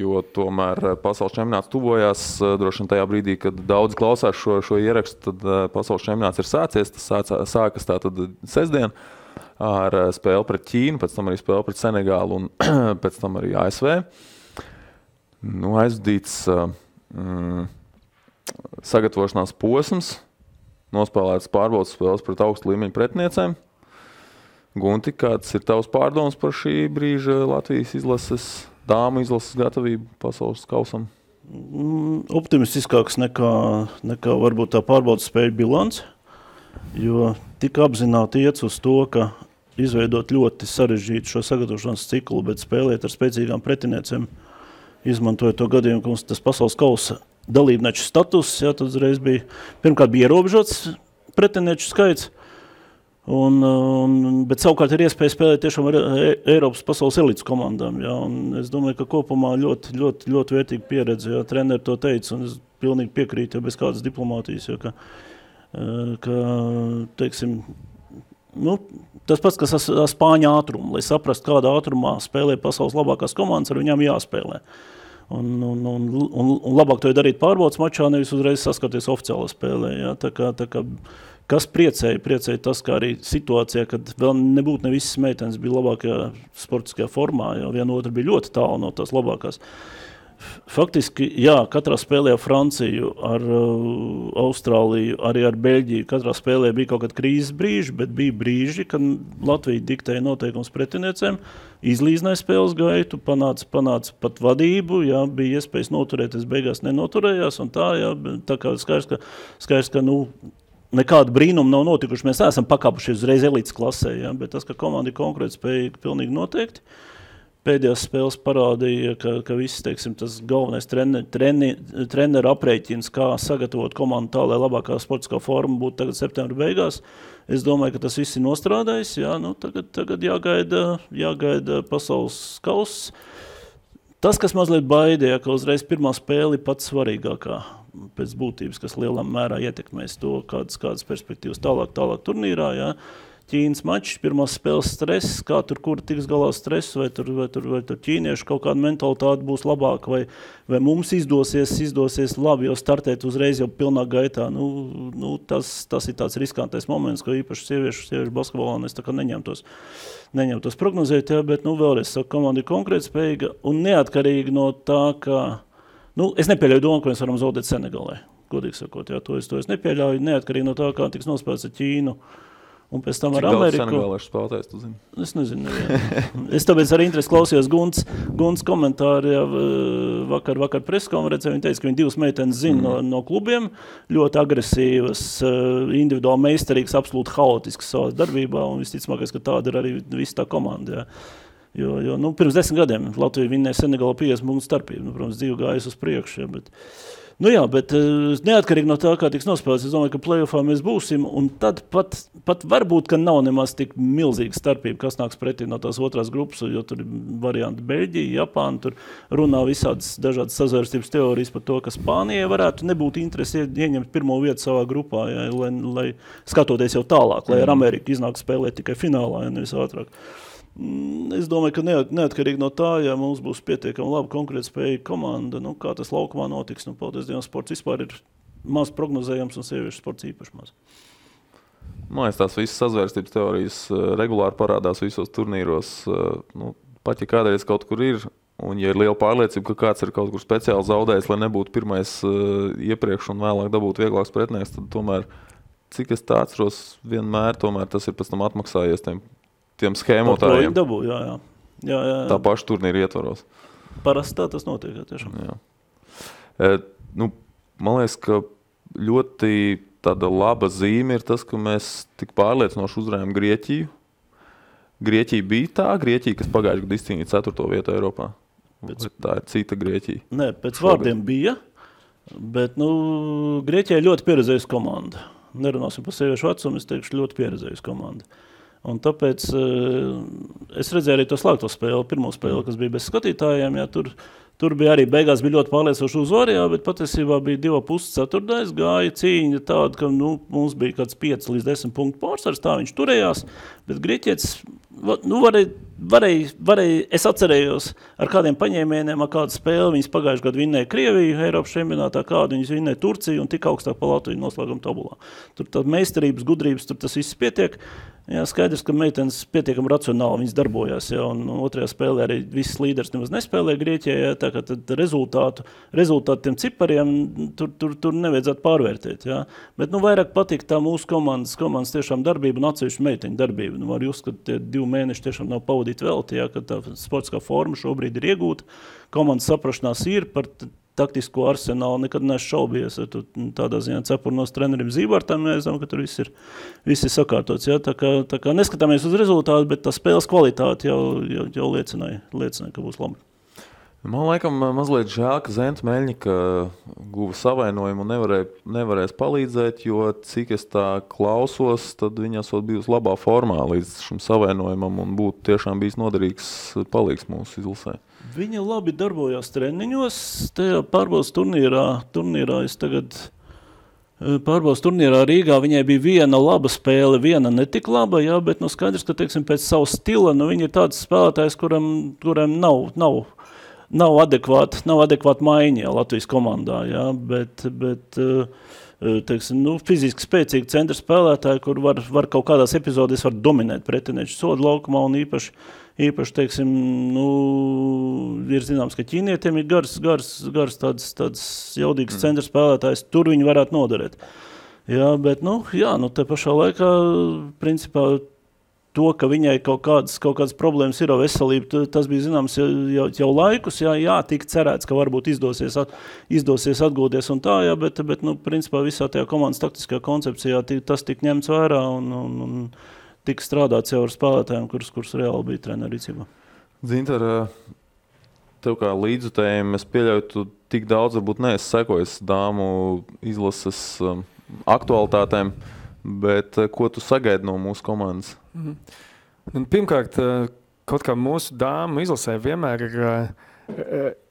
jo tomēr pasaules čempionāts tuvojās. Droši vien tajā brīdī, kad daudz klausās šo ierakstu, tad pasaules čempionāts ir sācies. Tas sākas tātad sestdien ar spēli pret Ķīnu, pēc tam arī spēli pret Senegālu un pēc tam arī ASV. Aizvadīts sagatavošanās posms, nospēlētas pārbaudas spēles pret augstu līmeņu pretiniecēm. Gunti, kāds ir tavs pārdoms par šī brīža Latvijas izlases, dāmu izlases gatavību pasaules kausam? Optimistiskāks nekā varbūt tā pārbaudas spēļu bilants, jo tik apzināti iet uz to, ka izveidot ļoti sarežģītu šo sagatavošanās ciklu, bet spēlēt ar spēcīgām pretiniecēm, izmantojot to gadījumu, ka mums tas pasaules kausa dalībnieču status, jā, tad uzreiz pirmkārt bija ierobežots pretinieču skaits, bet savukārt ir iespēja spēlēt tiešām ar Eiropas pasaules elites komandām. Jā, un es domāju, ka kopumā ļoti, ļoti, ļoti vērtīga pieredze. Jā, treneri to teica, un es pilnīgi piekrītu, ja bez kādas diplomātijas. Jā, ka teiksim, tas pats, kas ar spāņu ātrumu, lai saprast, kādā ātrumā spēlē pasaules labākās komandas, ar viņām jāspēlē. Un labāk to darīt pārbaudas mačā, nevis uzreiz saskarties oficiālā spēlē. Jā, tā kā kas priecēja tas, kā arī situācijā, kad vēl nebūtu ne visas meitenes bija labākajā sportiskajā formā, jo viena otra bija ļoti tālu no tās labākās. Faktiski, jā, katrā spēlē ar Franciju, ar Austrāliju, arī ar Beļģiju, katrā spēlē bija kaut kāda krīzes brīži, bet bija brīži, kad Latvija diktēja noteikums pretiniecēm, izlīdzināja spēles gaitu, panāca pat vadību, jā, bija iespējas noturēties, beigās nenoturējās, un tā kā skaidrs, ka nekāda brīnuma nav notikuši. Mēs esam pakāpušies uzreiz elites klasē, ja? Bet tas, ka komanda ir konkrēti spējīga, pilnīgi noteikti. Pēdējās spēles parādīja, ka viss, teiksim, tas galvenais treneru aprēķins, kā sagatavot komandu tā, lai labākā sportiskā forma būtu tagad septembra beigās. Es domāju, ka tas viss ir nostrādājis. Jā, tagad jāgaida pasaules kauss. Tas, kas mazliet baidīja, ka uzreiz pirmā spēle ir pats svarīgākā pēc būtības, kas lielā mērā ietekmēs to, kādas perspektīvas tālāk turnīrā. Jā. Ķīnas mačs, pirmās spēles stress, kā kur tiks galā stress, vai tur ķīniešu kaut kāda mentalitāte būs labāka, vai mums izdosies labi jau startēt uzreiz jau pilnā gaitā. Tas ir tāds riskantais moments, ko īpaši sieviešu basketbolā es tā kā neņemtos prognozēt, jā, bet vēlreiz saku, komanda ir konkrēti spējīga un neatkarīgi no tā, ka es nepieļauju domu, ka mēs varam zaudēt Senegalē, godīgi sakot, jā, to es nepieļauju, neatkarīgi no tā, kā tiks nospēlēts ar Ķīnu. Un pēc tam ar Ameriku. Cik daudz senegāliešu spēlētājs, tu zini? Es nezinu. Es tāpēc ar interesi klausījos Gunts komentāri vakar preskonferencē. Viņa teica, ka viņa divas meitenes zina no klubiem, ļoti agresīvas, individuāli meistarīgas, absolūti haotiskas savās darbībā, un visticamākais, ka tāda ir arī visa tā komanda. Jā. Jo pirms 10 gadiem Latvija vinnēja Senegālu 50 punktu starpību. Protams, dzīve gājas uz priekšu, bet bet neatkarīgi no tā, kā tiks nospēlēts, es domāju, ka play-offā mēs būsim, un tad pat varbūt, ka nav nemaz tik milzīga starpība, kas nāks pretī no tās otrās grupas, jo tur ir varianti Beļģija, Japāna, tur runā visādas dažādas sazvērstības teorijas par to, ka Spānijai varētu nebūt interesi ieņemt pirmo vietu savā grupā, jā, lai skatoties jau tālāk, lai ar Ameriku iznāk spēlēt tikai finālā, ja nevis ātrāk. Es domāju, ka neatkarīgi no tā, ja mums būs pietiekami labi konkrēti spējīga komanda, kā tas laukumā notiks. Paldies Dievam, sports vispār ir maz prognozējams un sieviešu sports īpaši maz. Tās visas sazvērstības teorijas regulāri parādās visos turnīros. Pat ja kādreiz kaut kur ir, un ja ir liela pārliecība, ka kāds ir kaut kur speciāli zaudējis, lai nebūtu pirmais iepriekš un vēlāk dabūt vieglāks pretinieks, tad tomēr, cik es tā atceros, vienmēr tomēr tas ir pēc tam atmaksājies tiem schēmotājiem. Jā. Tā paša turnīra ietvaros. Parasti tā tas notiek, tiešām. Jā. Man liekas, ka ļoti tāda laba zīme ir tas, ka mēs tik pārliecinoši uzvarējām Grieķiju. Grieķija bija tā Grieķija, kas pagājušajā gadā izcīnīja 4. vietu Eiropā. Tā ir cita Grieķija. Nē, pēc vārdiem bija, bet Grieķija ir ļoti pieredzējusi komanda. Nerunāsim par sieviešu vecumu, es teikšu ļoti pieredzējusi komanda. Un tāpēc es redzēju arī to slēgto spēli, pirmo spēli, kas bija bez skatītājiem. Jā, tur bija arī beigās bija ļoti pārliecinoši uzvari, bet patiesībā bija 2,5 ceturtais, gāja cīņa tāda, ka mums bija kāds 5 līdz 10 punktu pārsvars, tā viņš turējās, bet Grieķietis varēja, es atcerējos ar kādiem paņēmieniem, ar kādu spēli, viņas pagājuši gadu vinnēja Krieviju, Eiropas čempionātā, kādu viņas vinnēja Turciju un tik augstāk pa Latviju noslēguma tabulā. Tur tā meistarības, gudrības, tur tas viss pietiek. Jā, skaidrs, ka meitenes pietiekami racionāli viņas darbojās, jā, un otrajā spēlē arī visas līderis nemaz nespēlēja Grieķijā, jā, tā kā tad rezultātu tiem cipariem tur nevajadzētu pārvērtēt, jā. Bet vairāk patīk tā mūsu komandas tiešām darbība un atsevišķu meiteņu darbība. Var just, ka tie 2 mēneši tiešām nav pavadīti velti, jā, ka tā sportiskā forma šobrīd ir iegūta, komandas saprašanās ir par taktisko arsenālu, nekad nešaubījies. Tādā ziņā cepurnos trenerim Zībartam, mēs zinām, ka tur viss ir sakārtots. Ja? Tā kā neskatāmies uz rezultātu, bet tā spēles kvalitāte jau liecināja, ka būs labi. Man laikam mazliet žēl, ka Zenta Meļņika guva savainojumu un nevarēs palīdzēt, jo cik es tā klausos, tad viņa esot bijusi labā formā līdz šim savainojumam un būtu tiešām bijis noderīgs palīgs mūsu izlasē. Viņa labi darbojās treniņos, tajā pārbaudas turnīrā es tagad pārbaudas turnīrā Rīgā, viņai bija viena laba spēle, viena netik laba, jā, bet skaidrs, ka, teiksim, pēc savu stila, viņa ir tāds spēlētājs, kuram nav adekvāta maiņa Latvijas komandā, jā, bet teiksim, fiziski spēcīgi centra spēlētāji, kur var kaut kādās epizodēs var dominēt pretinieču sodu laukumā un īpaši, teiksim, ir zināms, ka ķīnietiem ir gars tāds jaudīgs centra spēlētājs, tur viņi varētu noderēt. Jā, bet, te pašā laikā, principā, to, ka viņai kaut kādas problēmas ir ar veselību, tas bija zināms jau laikus, jā, tik cerēts, ka varbūt izdosies atgūties un tā, jā, bet principā visā tajā komandas taktiskajā koncepcijā tas tik ņemts vērā un tika strādāts jau ar spēlētājiem, kurus reāli bija treneru rīcībā. Dzintar, tev kā līdzutējiem, es pieļauju, tu tik daudz varbūt neesi sekojis dāmu izlases aktualitātēm, bet ko tu sagaidi no mūsu komandas? Pirmkārt, kaut kā mūsu dāmu izlasē vienmēr ir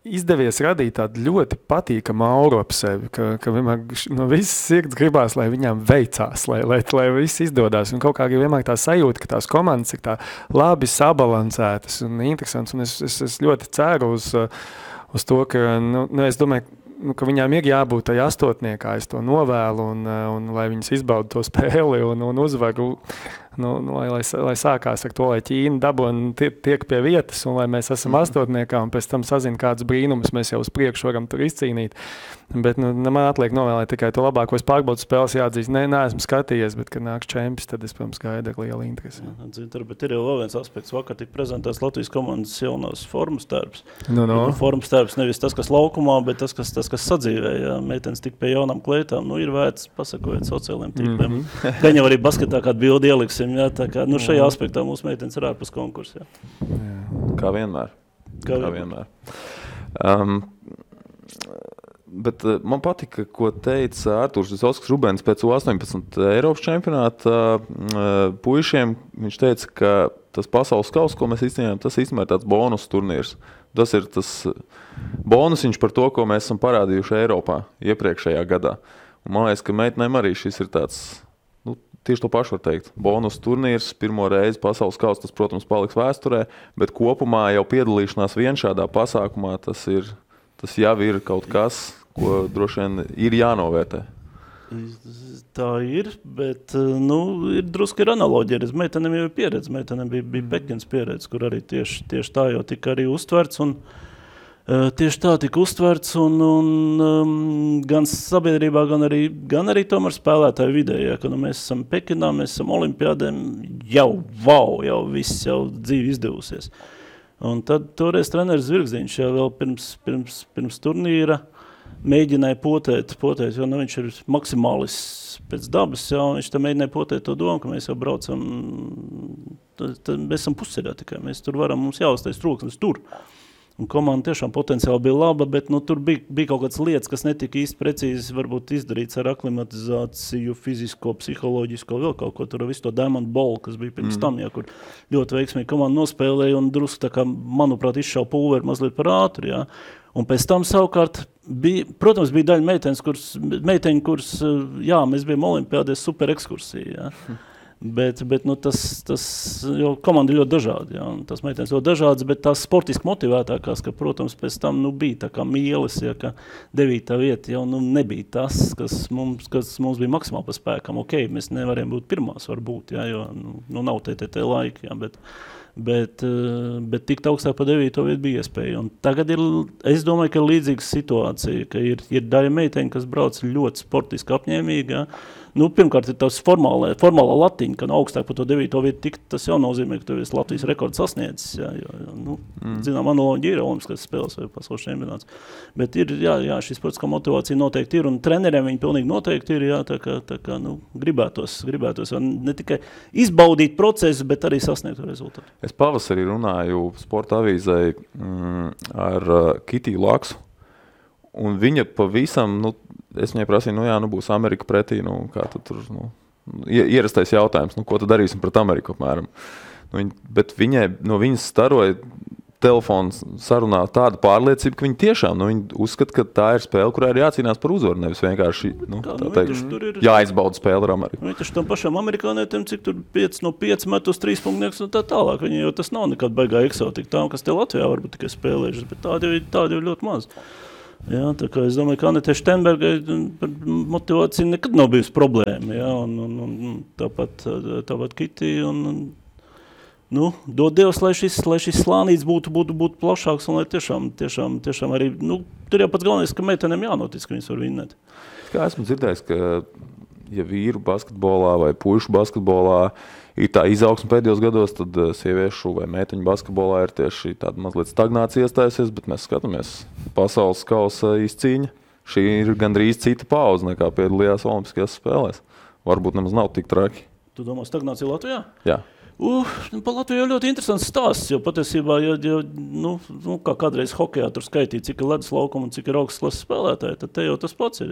izdevies radīt tādu ļoti patīkamu auru ap sevi, ka vienmēr no visas sirds gribās, lai viņām veicās, lai viss izdodās. Un kaut kā vienmēr tā sajūta, ka tās komandas ir tā labi sabalansētas un interesants. Un es ļoti ceru uz to, ka es domāju, ka viņām ir jābūt tajā astotniekā, es to novēlu, un lai viņas izbauda to spēli un uzvaru, lai sākās ar to, lai Ķīna dabona tiek pie vietas, un lai mēs esam astotniekā, un pēc tam sazina kādus brīnumus, mēs jau uz priekšu varam tur izcīnīt. Bet man atliek novēlēt tikai to labāko. Es pārbaudu spēles jāatzīst. Neesmu skatījies, bet, kad nāks čempions, tad es, protams, gaidu ar lielu interesi. Bet ir jau vēl viens aspekts. Vakar tika prezentēts Latvijas komandas jaunās formas tērps. Formas tērps nevis tas, kas laukumā, bet tas, kas sadzīvē. Jā. Meitenes tik pie jaunām kleitām. Ir vērts pasakojot sociālajiem tīkliem. Gan jau arī basketā kādu bildi ieliksim. Jā. Tā kā, šajā aspektā mūsu meitenes ir ārpus konkursa. Kā vienmēr. Bet man patika, ko teica Artūrs Visovskis-Rubens pēc U18 Eiropas čempionāta puišiem. Viņš teica, ka tas pasaules kauss, ko mēs izcīnījām, tas īstenībā ir tāds bonus turnīrs. Tas ir tas bonusiņš par to, ko mēs esam parādījuši Eiropā iepriekšējā gadā. Un man liekas, ka meitenēm arī šis ir tāds, tieši to pašu var teikt. Bonus turnīrs, pirmo reizi pasaules kauss, tas, protams, paliks vēsturē, bet kopumā jau piedalīšanās vien šādā pasākumā, tas jau ir kaut kas, ko droši vien ir jānovērtē. Tā ir, bet ir drusku ir analoģija. Meitenēm jau ir pieredze, meitenēm bija Pekins pieredze, kur arī tieši tā jau tika arī uztverts. Tieši tā tika uztverts un gan sabiedrībā, gan arī tomēr spēlētāju vidē. Ja, ka mēs esam Pekinā, mēs esam olimpiādēm, jau viss jau dzīvi izdevusies. Un tad toreiz treneris Zvirgziņš jau vēl pirms turnīra mēģināja potēt, jo viņš ir maksimālists pēc dabas, un viņš tam mēģināja potēt to domu, ka mēs jau braucam, tad mēs esam pusceļā tikai, mēs tur varam, mums jāuztais troksnis tur. Un komanda tiešām potenciāli bija laba, bet tur bija kaut kādas lietas, kas netika īsti precīzi varbūt izdarīts ar aklimatizāciju, fizisko, psiholoģisko, vēl kaut ko tur, visu to Diamond Ball, kas bija pirms tam, kur ļoti veiksmīgi komanda nospēlēja un drusku tā kā, manuprāt, izšauja pulveri mazliet par ātri, jā. Un pēc tam savukārt bija, protams, bija daļa meiteņu, kuras, jā, mēs bijām olimpiādēs super ekskursija, jā. Bet jo komanda ļoti dažādi, jā, un tas meitenes ļoti dažādas, bet tās sportiski motivētākās, ka, protams, pēc tam, bija tā kā mīles, ja, ka 9. vieta jau, nebija tas, kas mums bija maksimāli pa spēkam. Ok, mēs nevarējām būt pirmās, varbūt, jā, jo, nav TTT laika, jā, bet tikt augstāk pa 9. vietu bija iespēja. Un tagad es domāju, ka ir līdzīga situācija, ka ir daļa meiteņi, kas brauc ļoti sportiski apņēmīgi, jā. Pirmkārt, ir tas formālā latiņa, ka augstāk par to 9. vietu tikt, tas jau nozīmē, ka tev ir Latvijas rekords sasniedzis, jā, jo zinām, analoģija ir olimpiskās spēles vai pasaules čempionāts. Bet ir, jā, šī sportiskā motivācija noteikti ir, un treneriem viņi pilnīgi noteikti ir, jā, tā kā gribētos ne tikai izbaudīt procesu, bet arī sasniegt rezultātu. Es pavasarī runāju sporta avīzei ar Kitiju Laksu, un viņa pavisam, es viņai prasīju, būs Amerika pretī, kā tu tur, ierastais jautājums, ko tu darīsim pret Ameriku apmēram. Bet no viņas staroja telefons sarunā tāda pārliecība, ka viņi tiešām, viņi uzskata, ka tā ir spēle, kurā ir jācīnās par uzvaru, nevis vienkārši, jāizbauda spēle ar Ameriku. Viņi taču tam pašam amerikānietiem, cik tur 5 no 5 met uz 3 punktnieks un tā tālāk, viņi jau tas nav nekāda baigā eksotika tām, kas te Latvijā varbūt tikai spēlējušas, bet tādi jau ļoti maz. Jā, tā kā es domāju, ka Anete Štenbergai motivācija nekad nav bijusi problēma, jā, un tāpat Kiti, dod Dievs, lai šis slānīts būtu plašāks, un lai tiešām arī, tur jau pats galvenais, ka meitenēm jānotic, ka viņas var vinnēt. Kā esmu dzirdējis, ka ja vīru basketbolā vai puišu basketbolā ir tā izaugsme pēdējos gados, tad sieviešu vai meiteņu basketbolā ir tieši tāda mazliet stagnācija iestājusies, bet mēs skatāmies pasaules kausa izcīņa. Šī ir gandrīz cita pauze nekā piedalījās olimpiskajās spēlēs. Varbūt nemaz nav tik traki. Tu domā stagnācija Latvijā? Jā. Pa Latviju jau ļoti interesants stāsts, jo patiesībā, kā kādreiz hokejā tur skaitīja, cik ir ledus laukuma un cik ir augstas klases spēlētāji, tad te jau tas pats ir.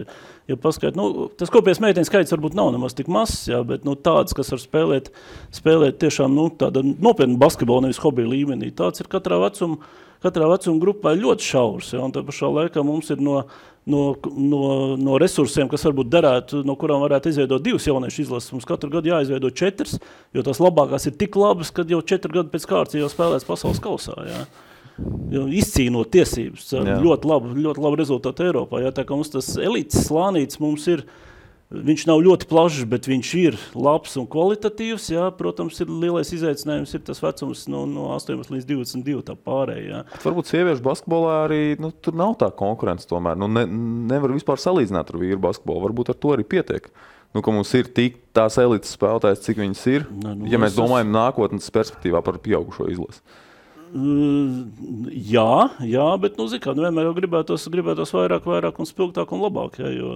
Ja paskait, tas kopējais meiteņu skaits varbūt nav nemaz tik mazs, jā, bet tāds, kas var spēlēt tiešām tāda nopietna basketbola, nevis hobija līmenī, tāds ir katrā vecuma grupā ļoti šaurs, jā, un tā pašā laikā mums ir no resursiem, kas varbūt derētu, no kurām varētu izveidot 2 jauniešu izlases. Mums katru gadu jāizveido 4, jo tās labākās ir tik labas, kad jau 4 gadu pēc kārtas jau spēlēs pasaules kausā. Jā. Jo izcīnot tiesības, ļoti labu rezultātu Eiropā. Jā. Tā kā mums tas elites slānīts mums ir, viņš nav ļoti plašs, bet viņš ir labs un kvalitatīvs. Jā. Protams, ir lielais izaicinājums, ir tas vecums no 18 līdz 22 tā pārējā. Varbūt sieviešu basketbolā arī tur nav tā konkurence tomēr. Nevar vispār salīdzināt ar vīru basketbolu. Varbūt ar to arī pietiek. Ka mums ir tik tās elites spēlētājs, cik viņas ir, ja mēs domājam nākotnes perspektīvā par pieaugušo izlasi. Jā, bet, vienmēr jau gribētos vairāk un spilgtāk un labāk, jā, jo,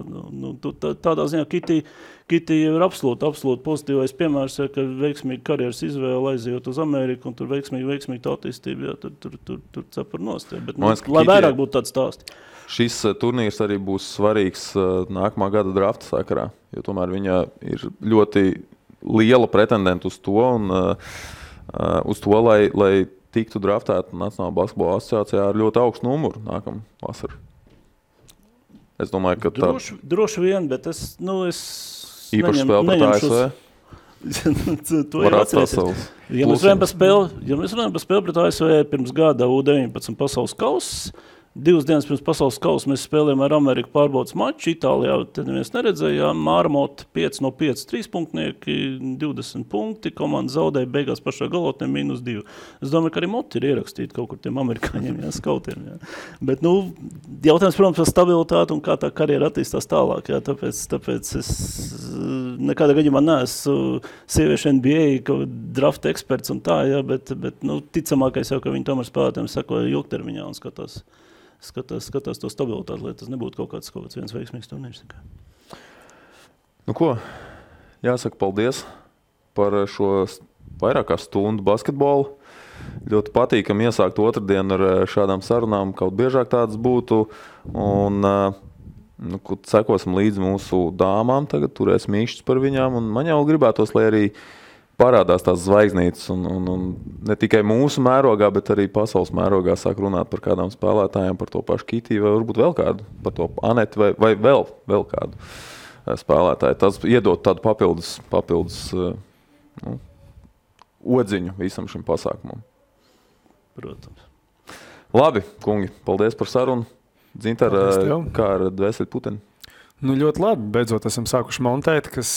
tādā ziņā Kiti ir absolūti pozitīvais piemērs, ja, ka veiksmīgi karjeras izvēle aizejot uz Ameriku un tur veiksmīgi tā attīstība, jā, tur cepar nost, jā, bet, lai vairāk būtu tāds stāsti. Šis turnīrs arī būs svarīgs nākamā gada drafta sakarā, jo tomēr viņa ir ļoti liela pretendenta uz to, lai tiktu draftēta Nacionālā basketbola asociācijā ar ļoti augstu numuru nākamā vasarā. Es domāju, ka droši vien, bet es īpaši spēle pret ASV. To jau atcerēsies. Ja mēs runājam par spēli pret ASV pirms gada U19 pasaules kauss, 2 dienas pirms pasaules kausa mēs spēlējām ar Ameriku pārbaudas maču. Itālijā tad neviens neredzējām. Mārmot 5 no 5 3-punktnieki, 20 punkti. Komanda zaudēja beigās pašā galotnē -2. Es domāju, ka arī moti ir ierakstīti kaut kur tiem amerikāņiem, skautiem. Jā. Bet, jautājums, protams, par stabilitāti un kā tā karjera attīstās tālāk. Jā. Tāpēc es nekādā gadījumā neesmu sieviešu NBA drafta eksperts un tā, jā, bet ticamākais jau, ka viņi tomēr spēlētājiem sekoja ilgtermiņā un skatās to stabilitāti, lai tas nebūtu kaut kāds viens veiksmīgs turnīrs. Jāsaka paldies par šo vairāk kā stundu basketbolu. ļoti patīkami iesākt otrdienu ar šādām sarunām, kaut biežāk tādas būtu. Un sekosim līdzi mūsu dāmām, tagad turēs mīkšķis par viņām. Un man jau gribētos, lai arī parādās tās zvaigznītes un ne tikai mūsu mērogā, bet arī pasaules mērogā sāk runāt par kādām spēlētājiem, par to pašu Kitiju vai varbūt vēl kādu, par to Aneti vai vēl kādu spēlētāju. Tas iedot tādu papildus odziņu visam šim pasākumam. Protams. Labi, kungi, paldies par sarunu. Dzintar, kā ar dvēseli puteni? Ļoti labi. Beidzot esam sākuši montēt, kas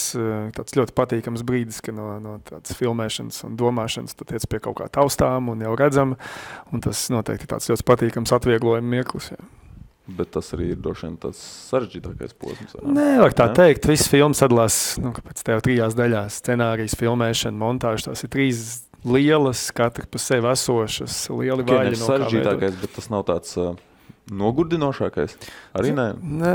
tāds ļoti patīkams brīdis, ka no tādas filmēšanas un domāšanas tu tiec pie kaut kā taustām un jau redzam. Un tas noteikti tāds ļoti patīkams atvieglojuma mirklis. Jā. Bet tas arī ir droši vien tāds sarežģītākais posms. Nevar tā teikt. Viss filmas sadalās pēc tev 3 daļās. Scenārijas, filmēšana, montāža. Tās ir 3 lielas, katra pa sevi esošas, lieli vaļi. Sarežģītākais, bet tas nav tāds nogurdinošākais? Arī nē?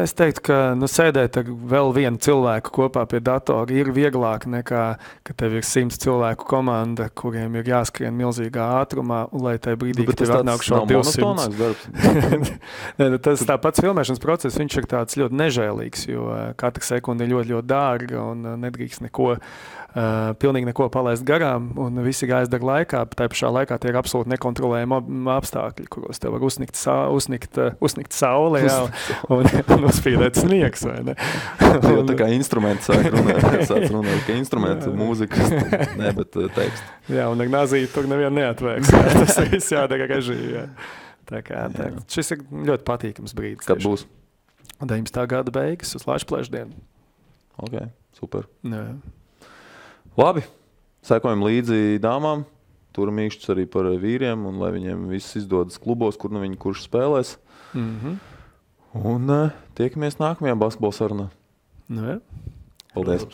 Es teiktu, ka sēdēt ar vēl vienu cilvēku kopā pie datora ir vieglāk nekā, ka tev ir 100 cilvēku komanda, kuriem ir jāskrien milzīgā ātrumā, un lai tajā brīdī, kad tev atnāk šo 200. Tas tāpats filmēšanas process, viņš ir tāds ļoti nežēlīgs, jo katra sekunda ir ļoti, ļoti dārga un nedrīkst pilnīgi neko palaist garām, un visi jāizdara laikā, bet tā pašā laikā tie ir absolūti nekontrolējami apstākļi, kuros tev var uzsnikt saule, jā, un uzspīdēt sniegs, vai ne? Jo tā kā instrumenti sāk runāt, ka instrumenti, mūzikas, ne, bet teksti. Jā, un ar nazīti tur nevienu neatvēks. Tas viss jādara režija, jā. Tā kā, šis ir ļoti patīkams brīdis. Kad būs? 19. gada beigas uz Lašplēšdienu. Ok, super. Jā. Labi, sekojam līdzi dāmām, turam mīkšķus arī par vīriem, un lai viņiem viss izdodas klubos, kur viņi kurš spēlēs. Un tiekamies nākamajā basketbola sarunā. Jā. Paldies!